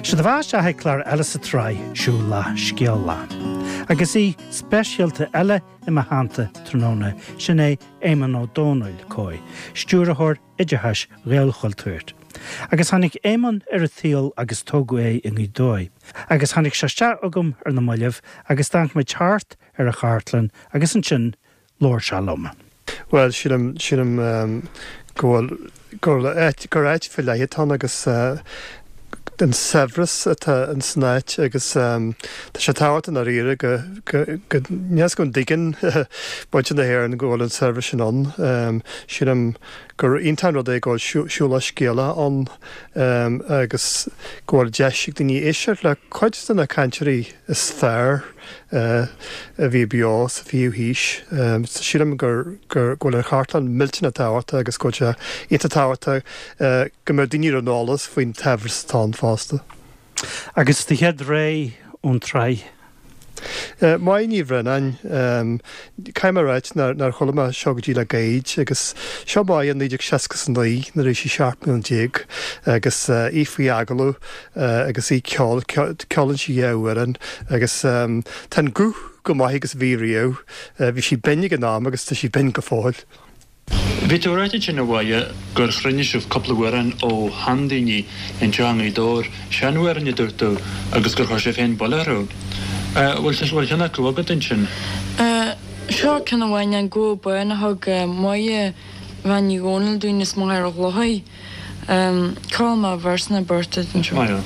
Seo daoibh isteach ag clár eile sa tsraith Siúlach Scéalach. Agus aoi speisialta eile i mo theannta tráthnóna, sin é Éamonn Ó Dónaill, COI, Stiúrthóir Oideachais Ghaelchultúir. Agus tháinig Éamonn ar an tsaol agus tógadh é i nGaoth Dobhair. Agus tháinig sé isteach chugam ar na mallaibh agus d'amharc muid thart ar an chartlann agus ansin labhair sé liom. Bhuel, sílim, sílim go bhfuil, gur áit, gur áit faoi leith atá ann agus an saibhreas atá ins an áit agus tá sé tábhachtach i ndáiríre go, go, go, níl a fhios agam an dtuigeann muintir na hÉireann go bhfuil an saibhreas sin ann. Sílim gur iontach an rud é go bhfuil Siúlach Scéalach ann agus go bhfuil deis ag daoine éisteacht le cuid de na cainteoirí is fearr a bhí beo sa bhfichiú haois. Sílim gur go bhfuil an chartlann millteanach tábhachtach agus go bhfuil sé iontach tábhachtach go mbeadh daoine ar an eolas faoin tsaibhreas atá ann fosta. Agus do chéad rogha ón tsraith? Máire Ní Bhraonáin, Caithfidh mé a ráit nár chuala mé seo go dtí le gairid agus seo Máire i 1969 nuair a bhí sí 17 mbliana agus í faoi agallamh agus í ag ceol, ceolann sí dhá amhrán agus tá an guth chomh maith agus a bhí riamh. Bhí sí binn ag an am agus tá sí binn go fóill. Bhí tú ag ráit ansin a Mháire gur chruinnigh sibh cúpla amhrán ó sheandaoine anseo i nGaoth Dobhair, seanamhráin a dúirt tú, agus gur chuir sibh féin buille orthu. Bhfuil bhfuil ceann acu agat ansin? Seo ceann amháin, An Gabha Bán a thug Máire Bhean Ní Dhomhnaill dúinn as Machaire Chlochair. Ceolfaidh mé véarsa nó beirt duit anseo.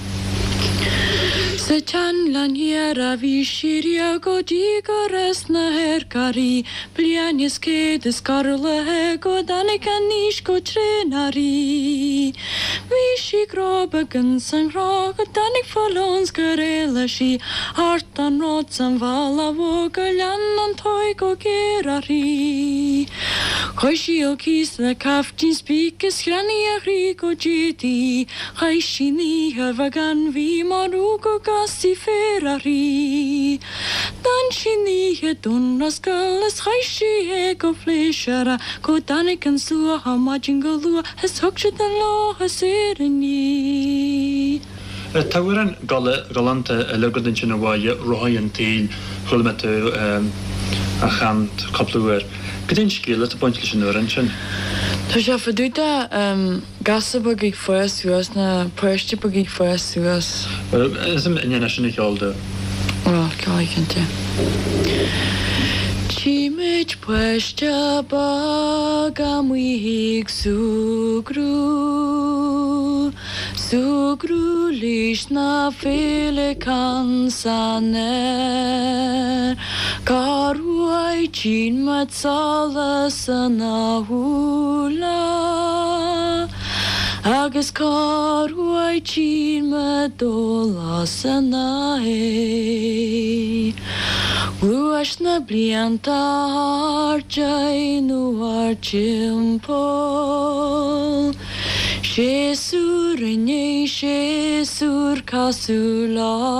Sa tsean-Ghleann Thiar a bhí sí riamh go dtí gur fhás na hairc uirthi, bliain is 100 is corraithe go dtáinig an aois go tréan uirthi. Bhí sí grábach ins an ghrá go dtáinig fuil ann 's gur éalaigh sí thart an ród 's an bhealach mhór gur lean an tóir go géar uirthi. Chuaigh sí ó cíos le caiftín spíce is cheannaigh a chroí go dtéadaí. Chaith sí an oíche ar bheagán bhídh mar go gcasfaí féar uirthi. D'fhan sí an oíche Dún Roscoil is chaith sí é go pléisiúrtha go dtáinig an suathadh maidin go luath is thug siad an lá saor í. Tá amhrán galánta eile agat ansin a Mháire, Rothaí an tSaoil, chuala mé tú á chanadh cúpla uair. Cad é an scéal atá ag baint leis an amhrán sin? Tá sé fá dtaobh de gasúr beag ag fás suas, nó páiste beag ag fás suas. Bhuel, is an é sin a cheol domh. Bhuel, ceolfaidh cinnte. Tchí muid páiste beag amuigh ag súgradh. Súgradh leis na féileacáin san aer. Cá raibh tchíonn muid solas ina shúile agus cá raibh tchíonn muid dólás ina aghaidh. Ghluais na blianta thart nó thart timpeall. Séasúr i ndiaidh séasúir cosúil leo.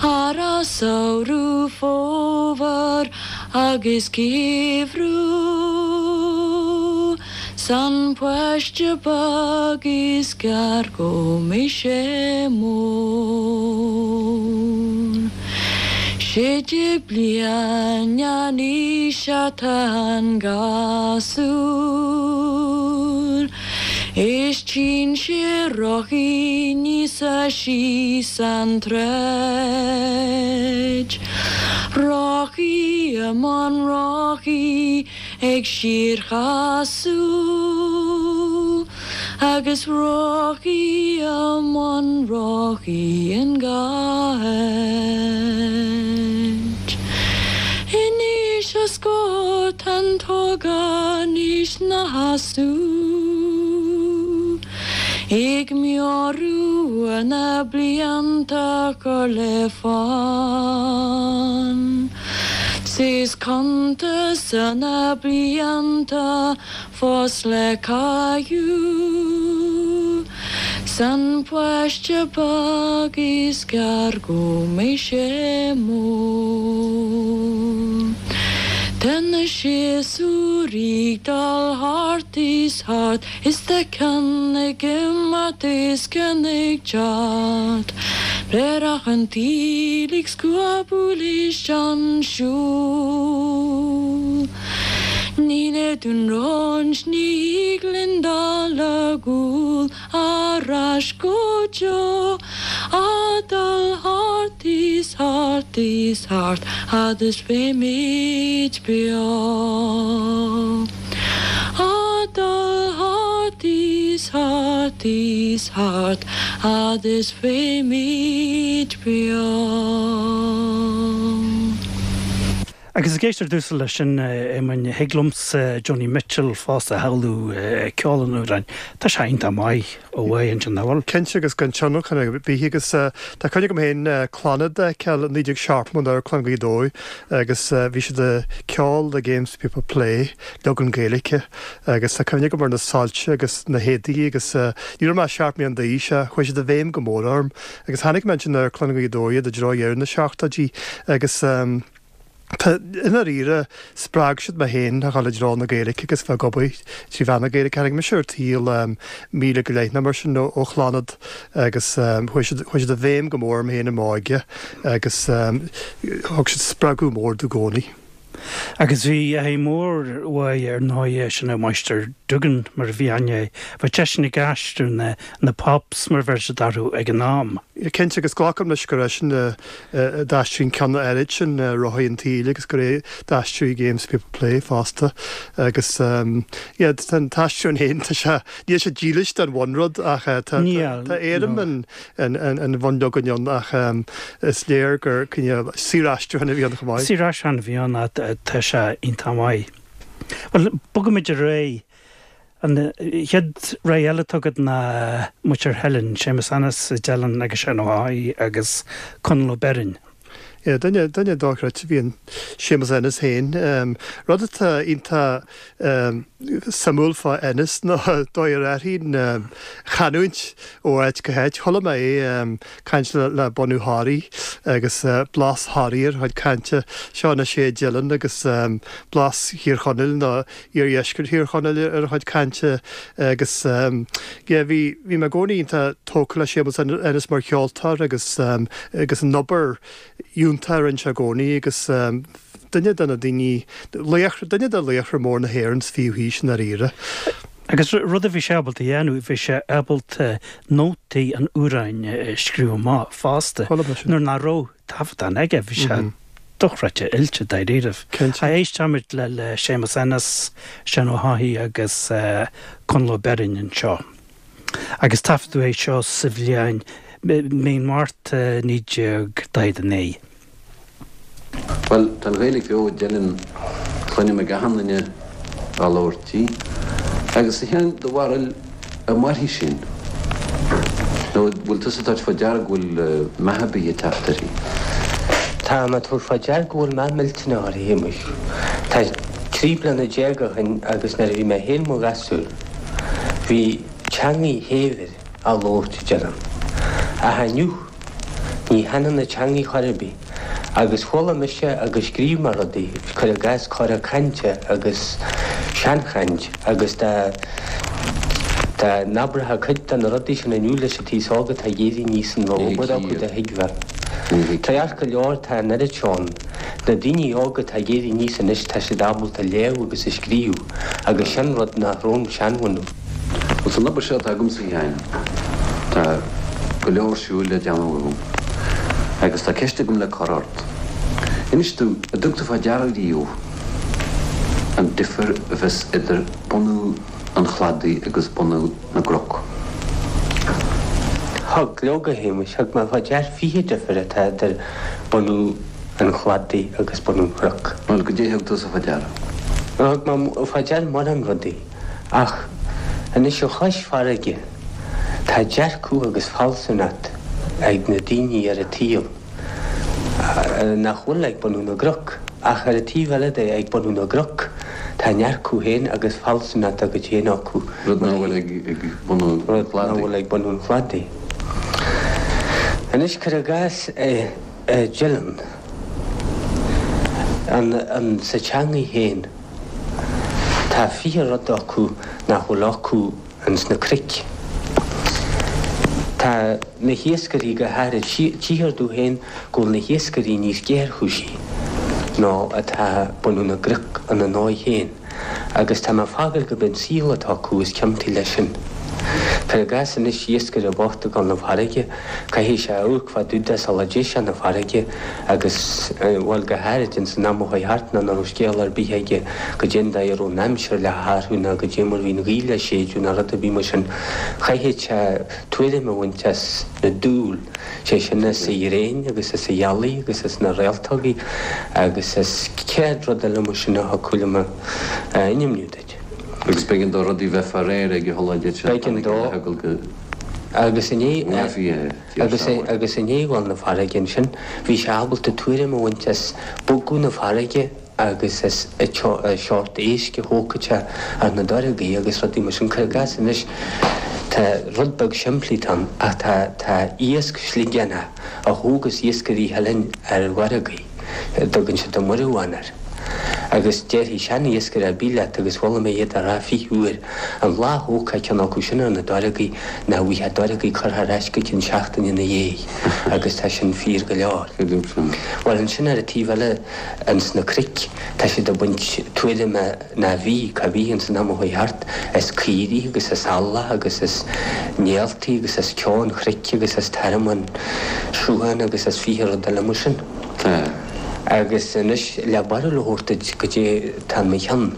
Earrach, samhradh, fómhar agus geimhreadh 's an páiste beag is gearr go mbeidh sé mór. 16 bliain an aois atá an gasúr Is tchíonn sé rothaí aníos síos an tsráid Rothaí i mbun rothaí ag síorchasadh Agus rothaí i mbun rothaí in gach áit. In aois a scóir tá an t-ógánach 'na sheasamh Ag meabhrú ar na blianta cur le fonn 'S is cuntas ar na blianta fós le caitheamh 's an páiste beag is gearr go mbeidh sé mór. Tá na séasúir ag dul thart is thart is tá ceann ag imeacht is ceann ag teacht. Bréarach an tsaoil ag scuabadh leis an siúl. Ní le Dún Roinnt, ní thig linn dul ar gcúl ar ais go deo, a dul thart is thart is thart fhad is bheimid beo. A dul thart is thart is thart fhad is bheimid beo. Agus ag éisteacht ar dtús leis sin, a Éamoinn, thig liomsa Joni Mitchell fosta a shamhlú ag ceol an amhráin. Tá sé iontach maith ó mhaith ansin, nach bhfuil? Cinnte, agus gan tionlacan ar bith agus tá cuimhne agam féin Clannad a fheiceáil i 1970 in Amharclann Ghaoth Dobhair agus bhí siad ag ceol The Games People Play, leagan Gaeilge, agus tá cuimhne agam ar na soilse agus na héadaí agus ní raibh mé ach 7 mbliana d'aois ach chuaigh siad i bhfeidhm go mór orm agus tháinig mé ansin ar Amharclann Ghaoth Dobhair i dtreo dheireadh na seachtóidí agus Tá, i ndáiríre, spreag siad mé féin a dhul i dtreo na Gaeilge agus bheith ag obair trí mheán na Gaeilge. Tháinig mise ar an tsaol míle go leith nó mar sin ó Chlannad agus chuaigh siad, chuaigh siad i bhfeidhm go mór orm féin i m'óige agus thug siad spreagadh mór domh i gcónaí. Agus bhí athair mór uaidh ar ndóighe, sin é Máistir Duggan mar a bhí aithne air. Bheadh seisean ag aistriú na, na Pops mar a bheir siad orthu ag an am. Cinnte, agus glacaim leis gur eisean a d'aistrigh an ceann áirid sin, Rothaí an tSaoil, agus gur é d'aistrigh Games People Play fosta. Agus yeah, tá an t-aistriúchán féin, tá sé, níl sé dílis don bhunrud ach tá éirim an bhunleagain ann ach is léir gur cineál saoraistriúchán a bhí ann chomh maith. Saoraistriúchán a bhí ann ach tá sé iontach maith. Bhuel, bogaimid ar aghaidh. An chéad rogha eile atá agat ná muintir Theilinn, Séamus Ennis i dTeileann agus Seán Ó hÁthaigh agus Conall Ó Beirn. Yeah, duine, duine dochreidte a bhí in Séamus Ennis féin. Rud atá iontach suimiúil fá Ennis ná dóigh ar athraigh an chanúint ó áit go háit. Chuala mé é ag caint le bunadh Thoraí agus blas Thoraí ar a chuid cainte. Seo anois é i dTeileann agus blas Thír Chonaill nó iardheisceart Thír Chonaill ar a chuid cainte agus yeah bhí bhí mé i gcónaí iontach tógtha le Séamus Ennis mar cheoltóir agus agus an obair fhiúntach a rinne sé i gcónaí agus duine de na daoine, laochra, duine de laochra mór na hÉireann sa bhfichiú haois i ndáiríre. Agus rud a bhí sé ábalta a dhéanamh, bhí sé ábalta nótaí an amhráin a scríobh amach fosta nuair nach raibh taifeadán aige, bhí sé dochreidte oilte dáiríribh. Cinnte. Éistfimid le le Séamus Ennis, Seán Ó hÁthaigh agus Conall Ó Beirn anseo. Agus taifeadadh é seo sa bhliain mí an Mhárta 1949. Bhuel, tá an Ghaeilge beo i dTeileann, cluinim ag achan duine á labhairt í. Agus a Sheáin, do bharúil, an mairfidh sin? Nó an bhfuil tusa ag tabhairt fá deara go bhfuil meath ar bith ag teacht uirthi? Tá mé ag tabhairt fá deara go bhfuil meath millteanach uirthi, a Shéamuis. Tá 13 bliana ó shin agus nuair a bhí mé féin mo ghasúr, bhí teangaidh shaibhir á labhairt i dTeileann. Ach inniu, ní thaitneann an teangaidh chor ar bith. Agus chuala mise agus scríobh mé rudaí, cuir i gcás cora cainte agus seanchaint agus dá dá n-abraitheá cuid de na rudaí sin inniu leis an t-aos óg atá ag éirí aníos an raibh obair acu do thuigbheá. Ceart go leor tá an oiread seo ann. Na daoine óga atá ag éirí aníos anois tá siad ábalta léamh agus a scríobh agus sin rud nach raibh an seanbhunadh. Bhuel, san obair seo atá agamsa, a Sheáin, tá go leor siúil le déanamh agam. Agus tá ceist agam le cur ort. Inis domh, an dtug tú fá deara riamh an difear a bheas idir bunadh an chladaigh agus bunadh na gcnoc? Thug, leoga, a Shéamuis, thug mé fá dear 20 difear atá idir bunadh an chladaigh agus bunadh an chnoc. Bhuel, goidé a thug tusa fá deara? Thug mé fá deara mórán rudaí. Ach anois ar chois farraige, tá dearcadh agus fealsúnacht ag na daoine ar an tsaol nach bhfuil ag bunadh na gcnoc. Ach ar an taobh eile de, ag bunadh na gcnoc, tá a ndearcadh féin agus fealsúnacht dá gcuid féin acu. Rud nach bhfuil ag bunadh an Rud nach bhfuil ag bunadh an chladaigh. Anois, cuir i gcás i dTeileann. An, an, sa teangaidh féin, tá 20 rud acu nach bhfuil acu ins na cnoic. Tá na hiascairí go háirid, tchíthear domh féin go bhfuil na hiascairí níos géarchúisí ná atá bunadh na gcnoc ina ndóigh féin. Agus tá mé ag fágáil gurb é an saol atá acu is ciontaí leis sin. Cuir i gcás anois iascaire bocht ag dul 'na farraige, caithfidh sé amharc fá dtaobh de sula dté sé 'na farraige agus, bhuel, go háirid ins an am a chuaigh thart nuair nach raibh scéal ar bith aige goidé an dóigh a raibh an aimsir le hathrú ná goidé mar bhí an ghaoth le séideadh ná rud ar bith mar sin, chaithfeadh sé tuairim a bhaint as na dúl. sé sin as an ghréin agus as an ghealaigh agus as na réaltógaí agus as 100 rud eile mar sin a thiocfadh liom a ainmniú duit. Agus b'éigean dó rudaí bheith fá réir ag a shula dtéadh sé B'éigean dó agus i ndiaidh agus agus i ndiaidh dhul 'na farraige ansin bhí sé ábalta tuairim a bhaint as bogadh na farraige agus as an seort éisc a thógfadh sé ar na doragaí agus rudaí mar sin. Cuir i gcás anois, tá rud beag simplí ann ach tá tá iasc sliogánach a thógas iascairí Theilinn ar dhoragaí, a dtugann siad an muireamhán air. Agus déarfaidh sean-iascaire ar bith leat, agus chuala mé iad á rá 20 uair, an lá a thógfá ceann acu sin ar na doragaí, nach bhfaighfeá doragaí curtha ar ais go cionn seachtaine ina dhiaidh, agus tá sin fíor go leor. Bhuel, ansin ar an taobh eile, Ins na cnoic tá siad ag baint tuairime ná bhí, cá bhí ins an am a chuaigh thart, as caoirigh agus as eallach agus as néaltaí agus as ceo an chnoic agus as tormán srutháin agus as 20 rud eile mar sin. Agus anois le barúil a thabhairt duit goidé tá in mo cheann.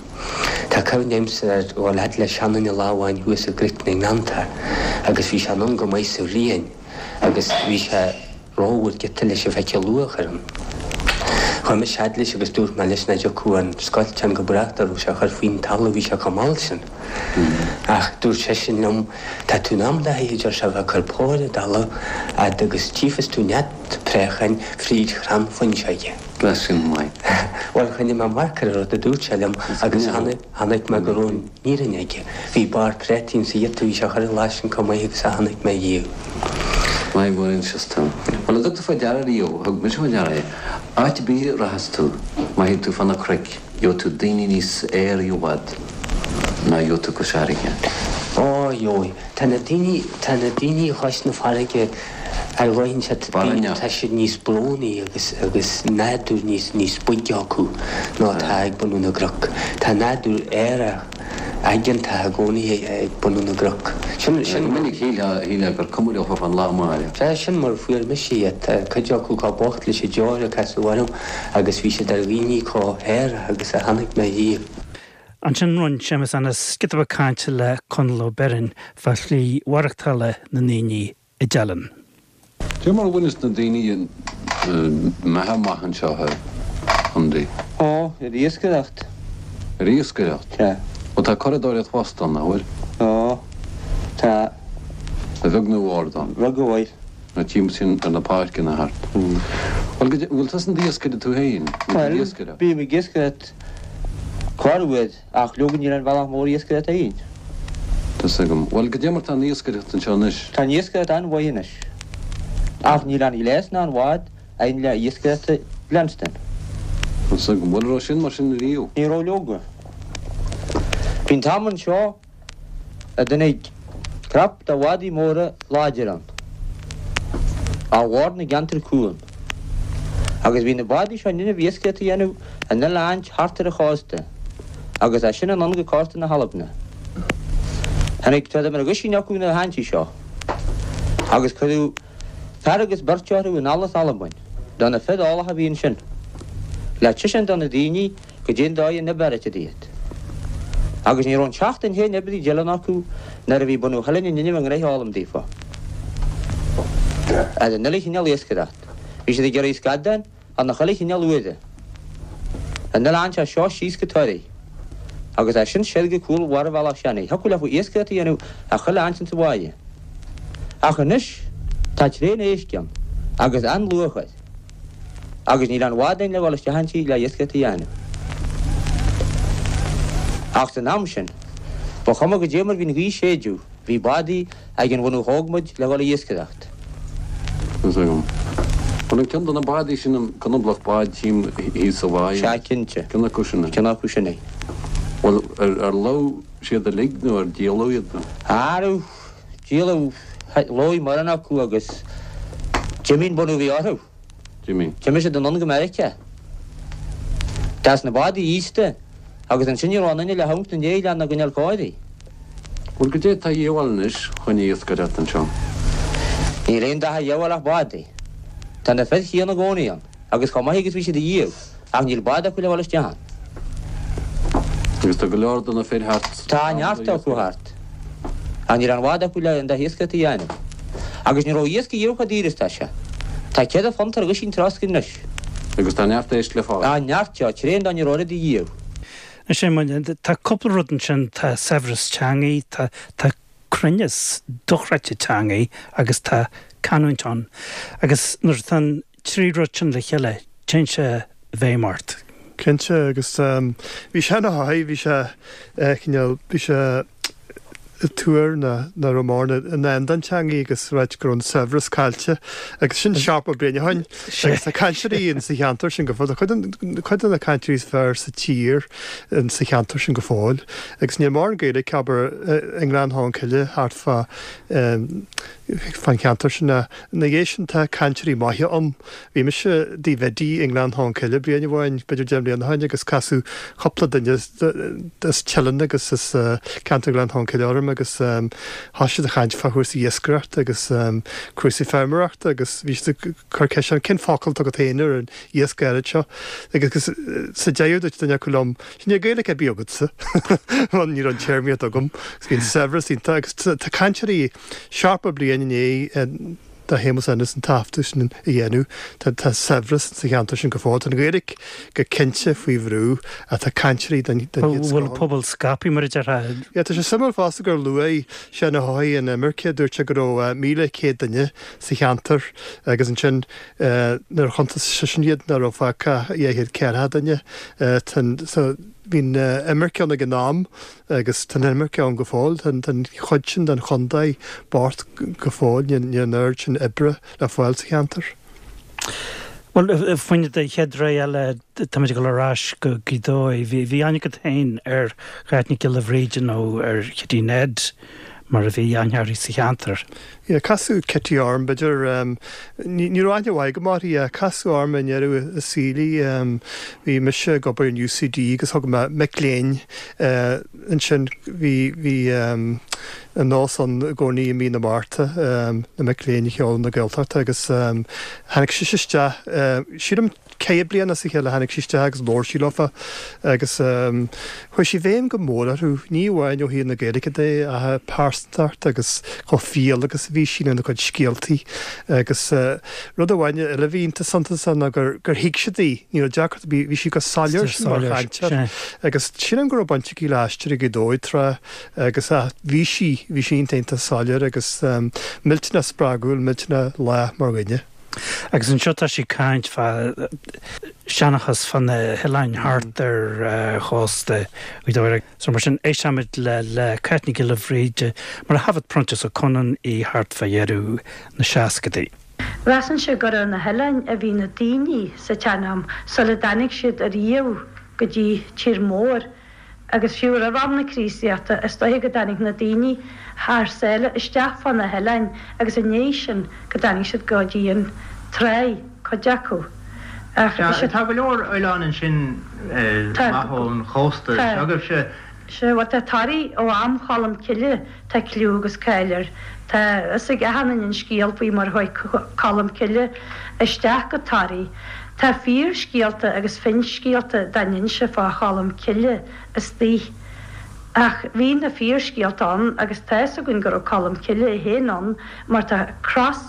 Tá cuimhne agamsa ar dhul fhad le seanduine lá amháin thuas i gCnoic na nGleannta agus bhí sé anonn go maith sa bhliain agus bhí sé rómhór giota leis a bheith ag luach ar an. Chuaigh mise fhad leis agus dúirt mé leis nach dtiocfadh an scoilteán go brách dá raibh sé a chur faoin talamh, bhí sé chomh mall sin. Ach dúirt seisean liom, Tá tú in am dóthain, a deir sé, a bheith ag cur póir i dtalamh fhad agus tchífeas tú nead préacháin fríd chrann fuinseoige. Bheadh sin maith. Bhuel, choinnigh mé amharc ar an rud a dúirt sé liom agus chonaic mé go raibh an fhírinne aige. Bhí barr préataí insa ghiota a bhí sé a chur an lá sin chomh maith agus a chonaic mé riamh. Maith go bhfuil tú. Bhuel, an dtug tú fá deara riamh, thug mise fá deara é, áit ar bith a rachas tú, má théann tú fá na cnoic, gheobhaidh tú daoine níos aeraí i bhfad ná gheobhaidh tú cois fharraige. Ó, gheobhaidh. Tá na daoine, tá na daoine chois na farraige ar dhóigh inteacht, tá siad níos brónaí agus, agus nádúr níos, níos boige acu ná atá ag bunadh na gcnoc. Tá nádúr aerach, aigeantach i gcónaí ag bunadh na gcnoc. Sin, sin. Go minic shílfeá, shílfeá gur cuma leo fán lá amárach. Sea, sin mar a fuair mise iad. Tá cuid acu chomh bocht leis an deoir a casadh orm agus bhí siad ar dhaoine chomh haerach agus a chonaic mé riamh. Ansin rinne Séamus Ennis giota beag cainte le Conall Ó Beirn fá shlí mhaireachtála na ndaoine i dTeileann. Cé mar a bhaineas na daoine a mbeatha amach anseo a Andy? Ó, ar iascaireacht. Ar iascaireacht? Sea. Ó tá curadóireacht fosta ann, nach bhfuil? Ó, tá. A bheag nó a mhór ann? A bheag a mhóir. Na timpeall sin ar na páirceanna thart. Bhuel, go, bhfuil tusa in d'iascaire tú féin? Bhuel, bím ag iascaireacht Corruair, ach leoga níl aon bhealach mór iascaireachta againn. Tá's agam. Bhuel, goidé mar tá an iascaireacht anseo anois? Tá an iascaireacht an-mhaith anois. Ach níl aon ghléas ná aon bhád againn le iascaireacht a leanstan. Tá's agam. Bhuel, raibh sin mar sin riamh? Ní raibh leoga. Bhí an t-am anseo a dtáinig crop de bhádaí móra láidir ann, ó bharr na gceantar cuan, agus bhí na bádaí seo in innimh iascaireacht a dhéanamh in uile áit thart ar an chósta, agus as sin anonn go cósta na hAlbna. Tháinig troid mar aguisín acu na háintí seo, agus cuireadh fear agus beirt orthu anall as Albain, do na fir eolacha a bhí ansin, le tuiscint do na daoine Goidé an dóigh an b'fhearr iad. Agus ní raibh an tseachtain féin oibre i dTeileann acu nuair a bhí bunadh Theilinn in innimh a ngnoithe a fhoghlaim daofa. Ar an uile chineál iascaireacht. Bhí siad ag iarraidh scadán ar na chuile chineál uaire. An uile áint as seo síos go Toraigh. Agus as sin soir go cúl bharr Bhealach Seanaidh. Thiocfadh leofa iascaireacht a dhéanamh ar chuile áint insa bháighe. Ach anois tá tréan éisc ann agus an-luach air. Agus níl aon bhád againn le dhul isteach inti le iascaireacht a dhéanamh. Ach san am sin, ba chuma goidé mar bhí an ghaoth ag séideadh, bhí bádaí ag an bhunadh thóg muid le dhul a iascaireacht. Tá's agam. Bhuel an ceann de na bádaí sin an conablach bád tchím thíos sa bháigh. Sea cinnte. Ceann acu sin é. Ceann acu sin é. Bhuel ar lobh siad uilig nó ar díoladh iad nó? Arú, díoladh, lobh mórán acu agus d'imigh an bunadh a bhí orthu. D'imigh. D'imigh siad anonn go Meiriceá. D'fhás na bádaí aosta agus ansin ní raibh aon duine le hamharc ina ndiaidh lena gcoinneáil cóirithe. Bhuel, goidé tá a dhíobháil anois chun iascaireacht anseo? Níl aon dath a dhíobháil ach bádaí. Tá na fir chéanna i gcónaí ann, agus chomh maith agus bhí siad ariamh, ach níl bád acu le dhul isteach ann. Agus tá go leor de na fir thart. Tá neart acu thart, ach níl aon bhád acu le an dath iascaireachta a dhéanamh. Agus ní raibh iasc ariamh chomh daor is tá sé. Tá 4 phunt ar dhuisín trosc anois. Agus tá neart éisc le fáil. Tá neart, tá tréan dá ní raibh oiread ariamh. Is é mar, tá cúpla rud ansin, tá saibhreas teangaí, tá, tá cruinneas dochreidte teangaí agus tá canúint ann. Agus nuair atá an trí rud sin le chéile, téann sé i bhfeidhm ort. Cinnte, agus bhí sé ina thaithí, bhí sé cineál, bhí sé ag tuar nach raibh mórán i ndán don teangaidh agus ráit go raibh an saibhreas caillte agus sin 70 bliain ó shoin agus tá cainteoirí in sa cheantar sin go fóill, tá cuid de na cainteoirí is fearr sa tír in sa cheantar sin go fóill agus níl mórán Gaeilge abair i nGleann Cholm Cille thart fá fán cheantar sin ach ina dhiaidh sin tá cainteoirí maithe ann. Bhí mise i dtigh Bhiddy i nGleann Cholm Cille bliain amháin, b'fhéidir 10 mbliana ó shin, agus casadh cúpla duine as Teileann agus as ceantar Ghleann Cholm Cille orm agus thosaigh siad ag caint fá chúrsaí iascaireachta agus cúrsaí feirmeoireachta agus bhí siad ag cur ceist orm cén focal atá agat féin ar an iasc áirid seo agus sa deireadh dúirt duine acu liom, Níl Gaeilge ar bith agatsa mar ní raibh an téarmaíocht agam agus bhí an saibhreas iontach agus tá cainteoirí 70 bliain i ndiaidh do Shéamus Ennis an taifeadadh sin a dhéanamh. Tá tá saibhreas sa cheantar sin go fóill. Tá an Ghaeilge go cinnte faoi bhrú ach tá cainteoirí den den chéad scoth Bhfuil an pobal scaipthe mar a déarfá? Yeah, tá sé suimiúil fosta gur luaigh Seán Ó hEochaidh an imirce, dúirt sé go raibh 1,100 duine sa cheantar agus ansin nuair a chuntas seisean iad nach raibh fágtha ach 240 duine. Tá an so bhí an imirce ann ag an am Agus tá an imirce ann go fóill. Tá an chuid sin den chontae bocht go fóill. Níl an oiread sin oibre le fáil sa cheantar. Bhuel, faoin do chéad rogha eile, táimid ag dul ar ais go Gaoth Dobhair. Bhí aithne agat féin ar Cháit Nic Giolla Bhríde nó ar Chití Ned mar a bhí aithne uirthi sa cheantar. Yeah, casadh Kitty orm, b'fhéidir, ní raibh aithne mhaith agam uirthi, casadh orm i ndeireadh a saoil í. Bhí mise ag obair in UCD agus thug mé mic léinn ansin, bhí, bhí an nós ann i gcónaí i mí na Márta, na mic léinn a sheoladh na Gaeltachta agus tháinig sise isteach, sílim, Ceithre bliana as a chéile tháinig sí isteach agus labhair sí leofa agus chuir sí i bhfeidhm go mór orthu, ní amháin ó thaobh na Gaeilge de ach a pearsantacht agus chomh fial agus a bhí sí lena cuid scéaltaí agus rud amháin eile a bhí iontach suntasach ná gur thuig siad í, ní raibh deacracht ar bith, bhí sí go soiléir sin mar chainteoir agus sílim go raibh baint aici le Aisteoirí Ghaoth Dobhair tráth agus bhí sí, bhí sí iontach iontach soiléir agus millteanach spreagúil, millteanach lách mar dhuine. Agus anseo tá sí ag caint fá seanchas fá na hoileáin thart ar chósta Ghaoth Dobhair. So mar sin, éistfimid le le Cáit Nic Giolla Bhríde mar a thaifead Proinsias Ó Conaill í thart fá dheireadh na seascadaí. Mheasainnse gur ar na hoileáin a bhí na daoine sa tsean-am sula dtáinig siad ariamh go dtí tír mór. Agus fiú roimh am na Críostaíochta, is dóiche go dtáinig na daoine thar sáile isteach fá na hoileáin agus i ndiaidh sin go dtáinig siad go dtí an tráigh, cuid acu. Ach is é. Tá go leor oileán ansin amach ón chósta s'agaibhse. Sea, bhuel tá Toraigh ó am Cholm Cille, tá cliú agus cáil air. Tá fhios ag achan duine an scéal faoi mar chuaigh Colm Cille isteach go Toraigh. Tá fíorscéalta agus finscéalta dá n-inse fá Cholm Cille istoíche. Ach bhí na fíorscéalta ann agus tá fhios againn go raibh Colm Cille é féin ann mar tá cros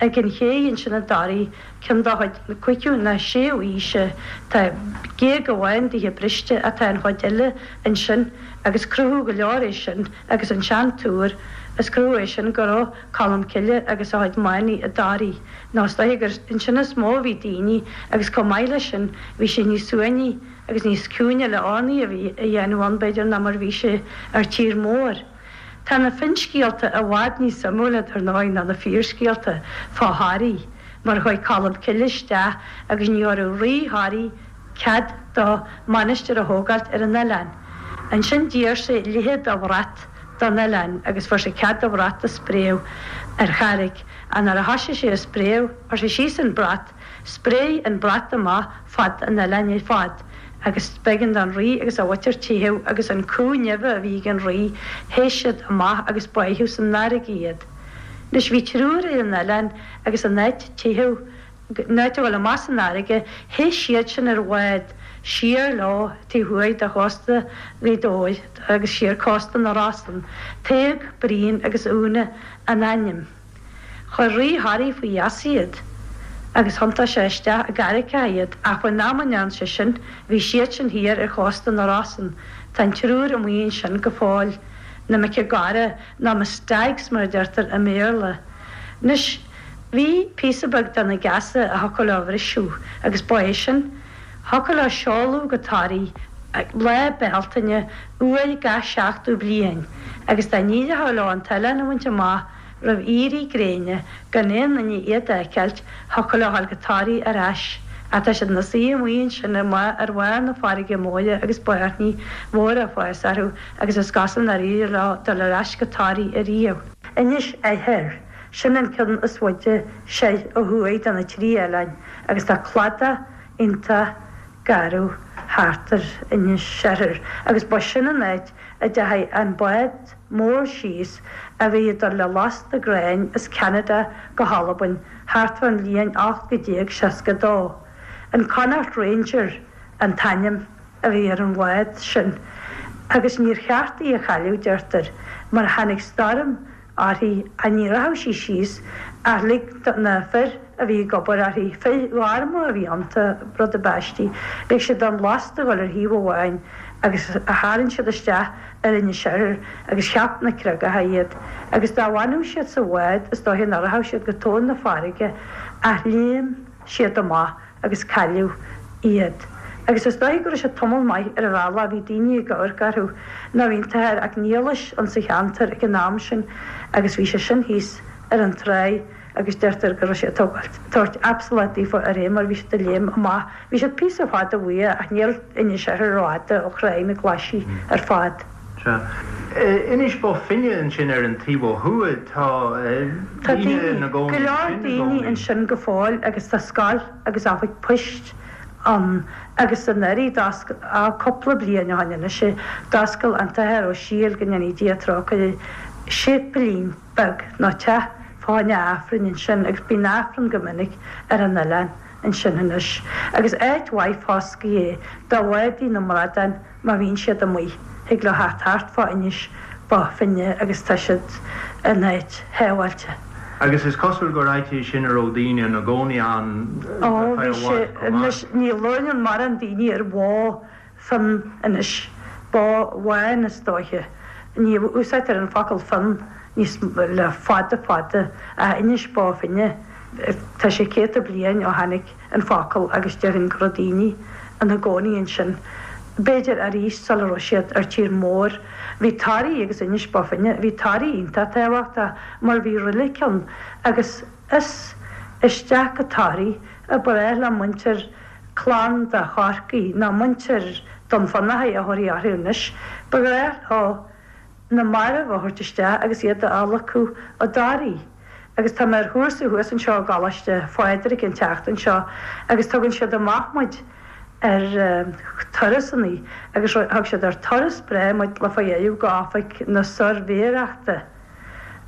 ag an ché ansin i dToraigh, ceann de chuid na cúigiú ná séú aoise. Tá géag amháin dithe briste ach tá an chuid eile ansin agus cruthú go leor é sin agus an sean-túr, is cruthú é sin go raibh Colm Cille agus a chuid manaigh i dToraigh. Nó is dóiche gur ansin is mó a bhí daoine agus chomh maith leis sin bhí sé níos suaimhní agus níos ciúine le urnaí a bhí a dhéanamh ann b'fhéidir ná mar bhí sé ar tír mór. Tá na finscéalta i bhfad níos suimiúla dar ndóigh ná na fíorscéalta fá Thoraigh. mar chuaigh Colm Cille isteach agus ní thabharfadh Rí Thoraí cead dó mainistir a thógáilt ar an oileán. Ansin d'iarr sé leithead de bhrat don oileán agus fuair sé cead do bhrat a spréadh ar charraig. Ach nuair a thoisigh sé a spréadh, chuir sé síos an brat, spréigh an brat amach fad an oileáin ar fad agus b'éigean don Rí agus a mhuintir teitheadh agus an cú neimhe a bhí ag an Rí, theith siad amach agus báitheadh san fharraige iad. Anois bhí triúr ar an oileán agus in áit teitheadh, in áit a dhul amach san fharraige, theith siad sin ar bhád siar leo taobh thuaidh de chósta Ghaoth Dobhair agus siar cósta na Rosann, Tadhg, Brian agus Úna a n-ainm. Chuir Rí Thoraí faoi gheasa iad agus thiontaigh sé isteach i gcarraigeacha iad ach faoin am a ndearna sé sin bhí siad sin thiar ar chósta na Rosann. Tá an triúr amuigh ansin go fóill, na mic Gara nó na Stags mar a deirtear i mBéarla. Anois bhí píosa beag de na geasa a thiocfadh leo a bhriseadh agus ba é sin, thiocfadh leo seoladh go Toraigh Lá Bealtaine uair gach seachtú bliain agus dá n-éireochadh leo an t-oileán a bhaint amach roimh éirí gréine gan aon duine iad a fheiceáilt, thiocfadh leo dhul go Toraigh ar ais. Ach tá siad ina suí amuigh ansin ar bharr na farraige móire agus bairnigh mhóra ag fás orthu agus is cosúil nár éirigh leo dul ar ais go Toraigh ariamh. Inis Oirthir, sin an ceann is faide soir ó thuaidh de na trí oileáin agus tá cladach iontach garbh thart ar Inis Oirthir agus ba sin an áit a dteachaigh an bád mór síos a bhí ag dul le lasta gráin as Ceanada go hAlbain thart fán bhliain 1862. An Connacht Ranger an t-ainm a bhí ar an bhád sin agus níor cheart í a chailleadh, deirtear, mar tháinig stoirm uirthi ach ní rachadh sí síos ach lig do na fir a bhí ag obair uirthi, fir ghorma a bhí iontu, rud ab aistí, lig siad don lasta dhul ar thaobh amháin agus tharraing siad isteach ar Inis Oirthir agus cheap na creagacha iad agus dá bhfanadh siad sa bhád is dóiche nach rachadh siad go tóin na farraige ach léim siad amach agus cailleadh iad. Agus is dóiche go raibh siad tamall maith ar an bhealach, bhí daoine ag amharc orthu, nó bhí an t-athair 'Ac Niallais insa cheantar ag an am sin agus bhí sé sin thíos ar an tráigh agus deirtear go raibh sé ag tógáilt, tabhairt absolát daofa ar é mar bhí siad ag léim amach. Bhí siad píosa fada uaidh ach níl Inis Oirthir rófhada ó Thráigh na Glaise ar fad. Sea. Inis Bó Finne ansin ar an taobh ó thuaidh, tá Tá daoine ina gcónaí go leor ansin i daoine gcónaí. ansin go fóill agus tá scoil agus oifig poist ann agus anuraidh d'oscail, á cúpla bliain ó shin anois é, d'oscail an tAthair Ó Siadhail, go ndéanaí Dia trócaire air, séipéilín beag nó teach fá choinne Aifrinn ansin agus bíonn Aifreann go minic ar an oileán ansin anois agus áit mhaith foscaidh é do bhádaí na mbradán Má bhíonn siad amuigh, thig leo theacht thart fá Inis Bó Finne agus tá siad in áit shábháilte. Agus is cosúil gur áit é sin a raibh daoine ina gcónaí ann Ó, ar feadh bhí i sé, bhfad chomh maith. anois, ní labhrann mórán daoine ar bhó fionn anois, bó bhán is dóiche. Ní úsáidtear an focal fionn níos le fada fada, ach Inis Bó Finne, tá sé céadta bliain ó tháinig an focal agus déarfainn go raibh daoine ina gcónaí ansin, b'fhéidir arís sula raibh siad ar tír mór. Bhí Toraigh agus Inis Bó Finne, bhí Toraigh iontach tábhachtach mar bhí roilig ann agus is isteach go Toraigh a ba ghnách le muintir clann de Chorcaigh, nó muintir Dún Fionnachaidh a thabharfaí orthu anois, ba ghnách leo na mairbh a thabhairt isteach agus iad a adhlacadh i dToraigh. Agus tá mé ar chúrsa thuas anseo i gColáiste Phádraig an tseachtain seo agus tugann siad amach muid ar turasannaí agus thug siad ar turas breá muid le fá dheireadh go oifig na suirbhéireachta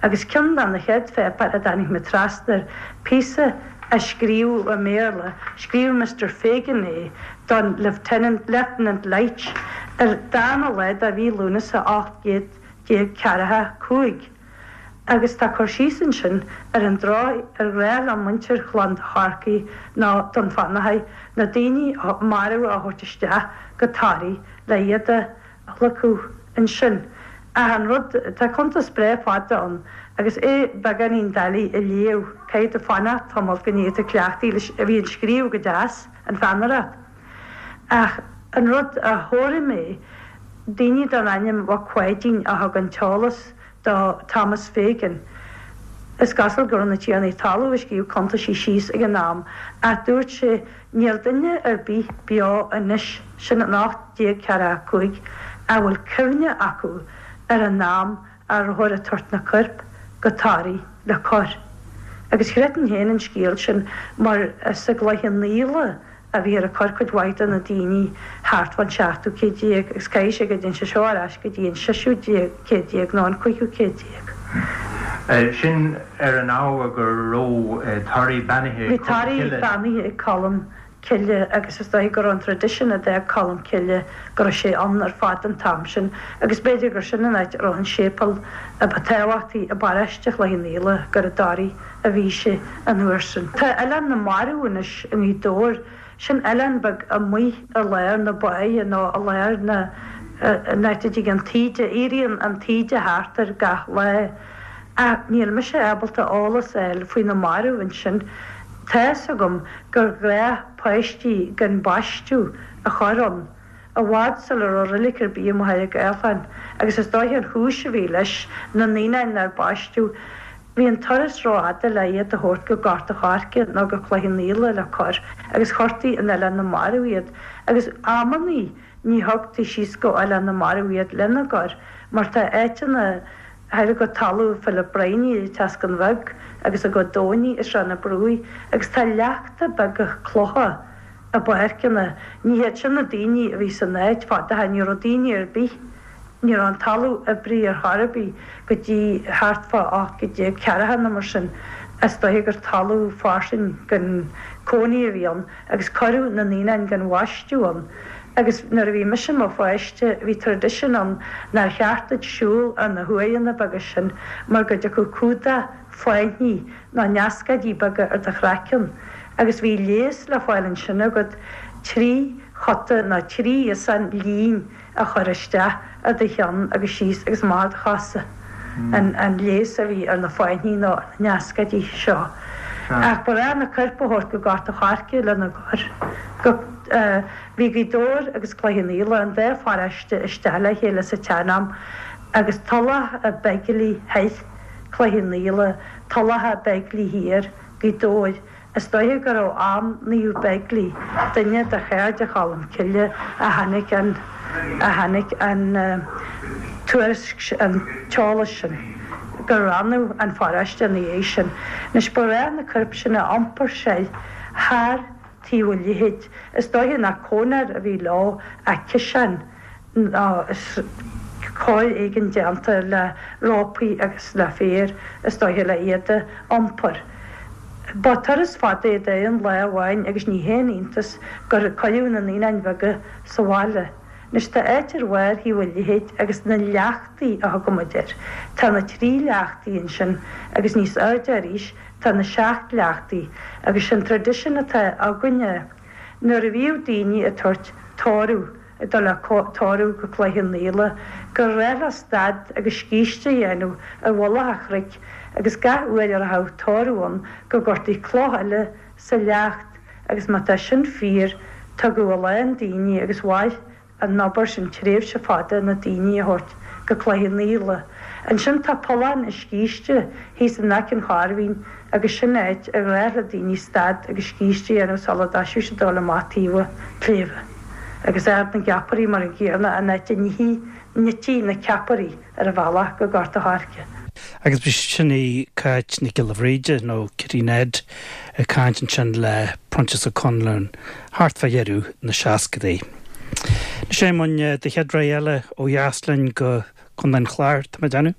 agus ceann de na chéad pháipéir a dtáinig mé trasna air, píosa a scríobhadh i mBéarla, scríobh Mister Fagan é don Lieutenant, Lieutenant Leitch ar darna lá de mhí Lúnasa 1845. Agus tá cur síos ansin ar an dóigh ar ghnách le muintir Chlann de Chorcaí nó Dún Fionnachaidh na daoine marbha a thabhairt isteach go Toraigh le iad a adhlacadh ansin. Ach an rud, tá cuntas breá fada ann agus é beagáinín doiligh a léamh, caithfidh tú fanacht tamall go n-éirí tú cleachtaithe leis, bhí an scríobh go deas, an pheannaireacht. Ach an rud a chomhair mé, daoine den ainm Mhac Pháidín a thug an t-eolas do Thomas Fagan. Is cosúil go raibh na tiarnaí talún ag scríobh cuntaisí síos ag an am ach dúirt sé níl duine ar bith beo anois, sin in 1845, a bhfuil cuimhne acu ar an am a rabhthar ag tabhairt na coirp go Toraigh le cur. Agus chreidfinn féin an scéal sin mar is i gCloich Cheann Fhaola a bhíthear ag cur cuid mhaith de na daoine thart fán seachtú céad déag agus caithfidh sé go dtéann sé seo ar ais go dtí an seisiú céad déag nó an cúigiú céad déag. Sin ar an ábhar go raibh Toraigh beannaithe ag Colm Cille. Bhí Toraigh beannaithe ag Colm Cille agus is dóigh go raibh an traidisiún a d'fhág Colm Cille go raibh sé ann ar fad an t-am sin agus b'fhéidir gur sin an áit a raibh an séipéal a ba tábhachtaí i bparóiste Chloich Cheann Fhaola, gur i dToraigh a bhí sé an uair sin. Tá Oileán na Marbh anois i nGaoth Dobhair, sin oileán beag amuigh i lár na báighe nó i lár na, an áit a dtig an taoide, éiríonn an taoide thart air gach lá. Ach níl mise ábalta eolas a fháil faoi na mairbh ansin. Tá fhios agam gur ghnách páistí gan baisteadh a chur ann, i bhfad sula raibh roilig ar bith i Machaire Gathlán, agus is dóiche an chúis a bhí leis, na naíonáin nár baisteadh, bhí an turas rófhada le iad a thabhairt go Gort a' Choirce nó go Cloich Cheann Fhaola le cur, agus chuirtí in Oileán na Marbh iad, agus amannaí ní thugtaí síos go Oileán na Marbh iad lena gcur, mar tá áiteanna thoir go talamh Philip Brynie i dTeascán Bheag agus i gCo Domhnaigh i Srath na Brúigh agus tá leachta beaga clocha i bpáirceanna. Ní hiad sin na daoine a bhí san áit fad ó shin, ní raibh daoine ar bith, ní raibh an talamh oibrithe ar chor ar bith go dtí thart fá 1840 nó mar sin. Is dóiche gur talamh fairsing gan cónaí a bhí ann agus cuireadh na naíonáin gan bhaisteadh ann. Agus nuair a bhí mise i mo pháiste bhí tradition ann nár cheart duit siúl ar na huaigheanna beaga sin mar go dtiocfadh cumhdach fáithní nó neascóidí beaga ar do chraiceann agus bhí leigheas le fáil ansin agat trí chota nó trí iosán lín a chur isteach ar do cheann agus síos agus amach ar do chosa, an leigheas a bhí ar na fáithní nó ar na neascóidí seo. Ach ba ghnách na coirp a thabhairt go Gort a' Choirce lena gcur. Go, bhí Gaoth Dobhair agus Cloich Cheann Fhaola, an dá pharóiste isteach le chéile sa tsean-am agus Tulach a' Beigile thoir, Cloich Cheann Fhaola, Tulach a' Beigile thiar, Gaoth Dobhair. Is dóiche gur ó am Naomh Beigile, duine de chairde Cholm Cille, a tháinig an a tháinig an tuairisc, an t-eolas sin, gur roinneadh an pharóiste ina dhiaidh sin. Anois, ba ghnách na coirp sin a iompar soir thar taobh an leithid. Is dóiche nach cónair a bhí leo ach ciseán. nó cóir éigin déanta le rópaí agus le féar, is dóiche, le iad a iompar. Ba turas fada é d'aon lá amháin agus ní haon iontas gur cuireadh na naíonáin bheaga sa bhaile. Anois tá áit ar bharr thaobh an leithid agus na leachtaí a thugaimid air. Tá na trí leachtaí ansin agus níos airde arís tá na seacht leachtaí agus sé'n tradition atá againne nuair a bhíodh daoine ag tabhairt tórramh ag dul le tórramh go Cloich Cheann Fhaola, gur ghnách leo stad agus scíste a dhéanamh ar mhullach an chnoic agus gach uair a rachadh tórramh ann go gcuirtí cloch eile sa leacht agus má tá sin fíor tugadh a lán daoine agus mhair an obair sin tréimhse fada na daoine a thabhairt go Cloich Cheann Fhaola. Ansin tá Pollán an Scíste thíos in aice an Chairbhín agus sin áit ar ghnách le daoine stad agus scíste a dhéanamh sula dtoiseodh siad dul amach taobh an tsléibhe. Agus Ard na gCeapairí mar an gcéanna, an áit a n-ití na ceapairí ar an bhealach go Gort a' Choirce. Agus b'shin í Cáit Nic Giolla Bhríde, nó Kitty Ned, ag caint ansin le Proinsias Ó Conluain thart fá dheireadh na seascadaí. Anois a Éamoinn, do chéad rogha eile ó dheas linn go Contae an Chláir, tá mé ag déanamh.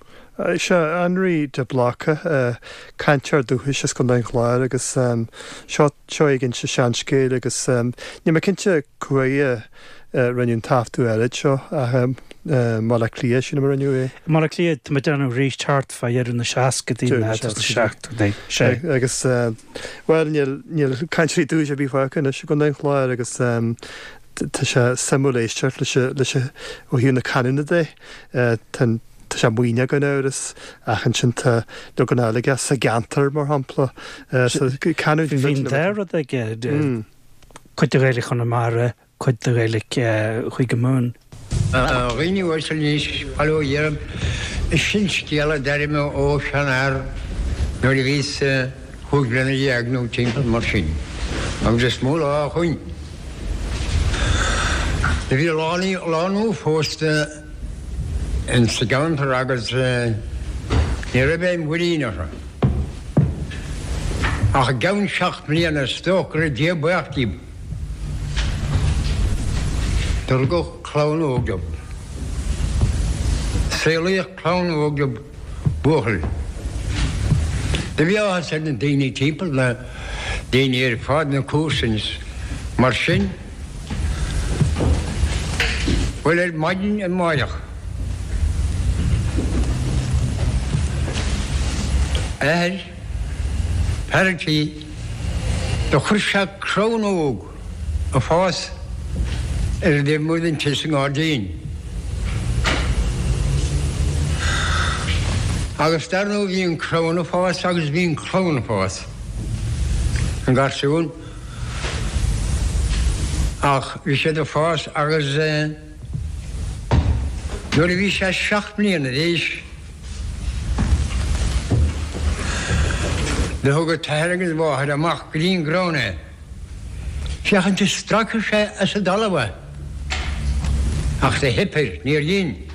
Sea, Anraí de Bláca, cainteoir dúchais as Contae an Chláir agus seo seo é ag inse seanscéil agus níl mé cinnte cá huair a rinneadh an taifeadadh áirid seo ach i mBaile Átha Cliath sílim a rinneadh é. I mBaile Átha Cliath, tá mé ag déanamh arís thart fá dheireadh na seascadaí nó tús na seachtóidí. Sea. Agus bhuel níl níl cainteoirí dúchais ar bith fágtha anois i gContae an Chláir agus Tá sé suimiúil éisteacht leis leis ó thaobh na canúna de. Tá tá sé maoithneach gan amhras ach ansin tá leagan eile aige sa gceantar mar shampla. So canúint Bhí an dá rud aige, cuid de Ghaeilge Chonamara, cuid de Ghaeilge Chúige Mumhan. A dhaoine uaisle anois, bail ó Dhia oraibh, sin scéal a d'airigh mé ó sheanfhear. Nuair a bhíos chúig bliana dhéag nó timpeall mar sin, agus is mó lá ó shoin. Do bhí lánúin phósta ins sa gceantar agus ní raibh aon mhuirín orthu. Ach i gceann seacht mbliana is dócha go raibh Dia buíoch díobh. Do rugadh clann óg dóibh. Saolaíodh clann óg dóibh, buachaill. Do bhí áthas ar na daoine timpeall, na daoine ar fad, na comharsain is mar sin. Bhuel, ar maidin amáireach, athair, fear an tí, do chuir sé crann óg ag fás ar an dtaobh amuigh den tigh sa ngairdín. Agus dar ndóigh bhí an crann ag fás agus bhí an clann ag fás, an garsún. Ach bhí siad ag fás agus nuair a bhí sé seacht mbliana d'aois do thug a t-athair agus a mháthair amach go dtí an gcrann é féachaint an stracfadh sé as an dtalamh é. Ach do theip air, níor dhein.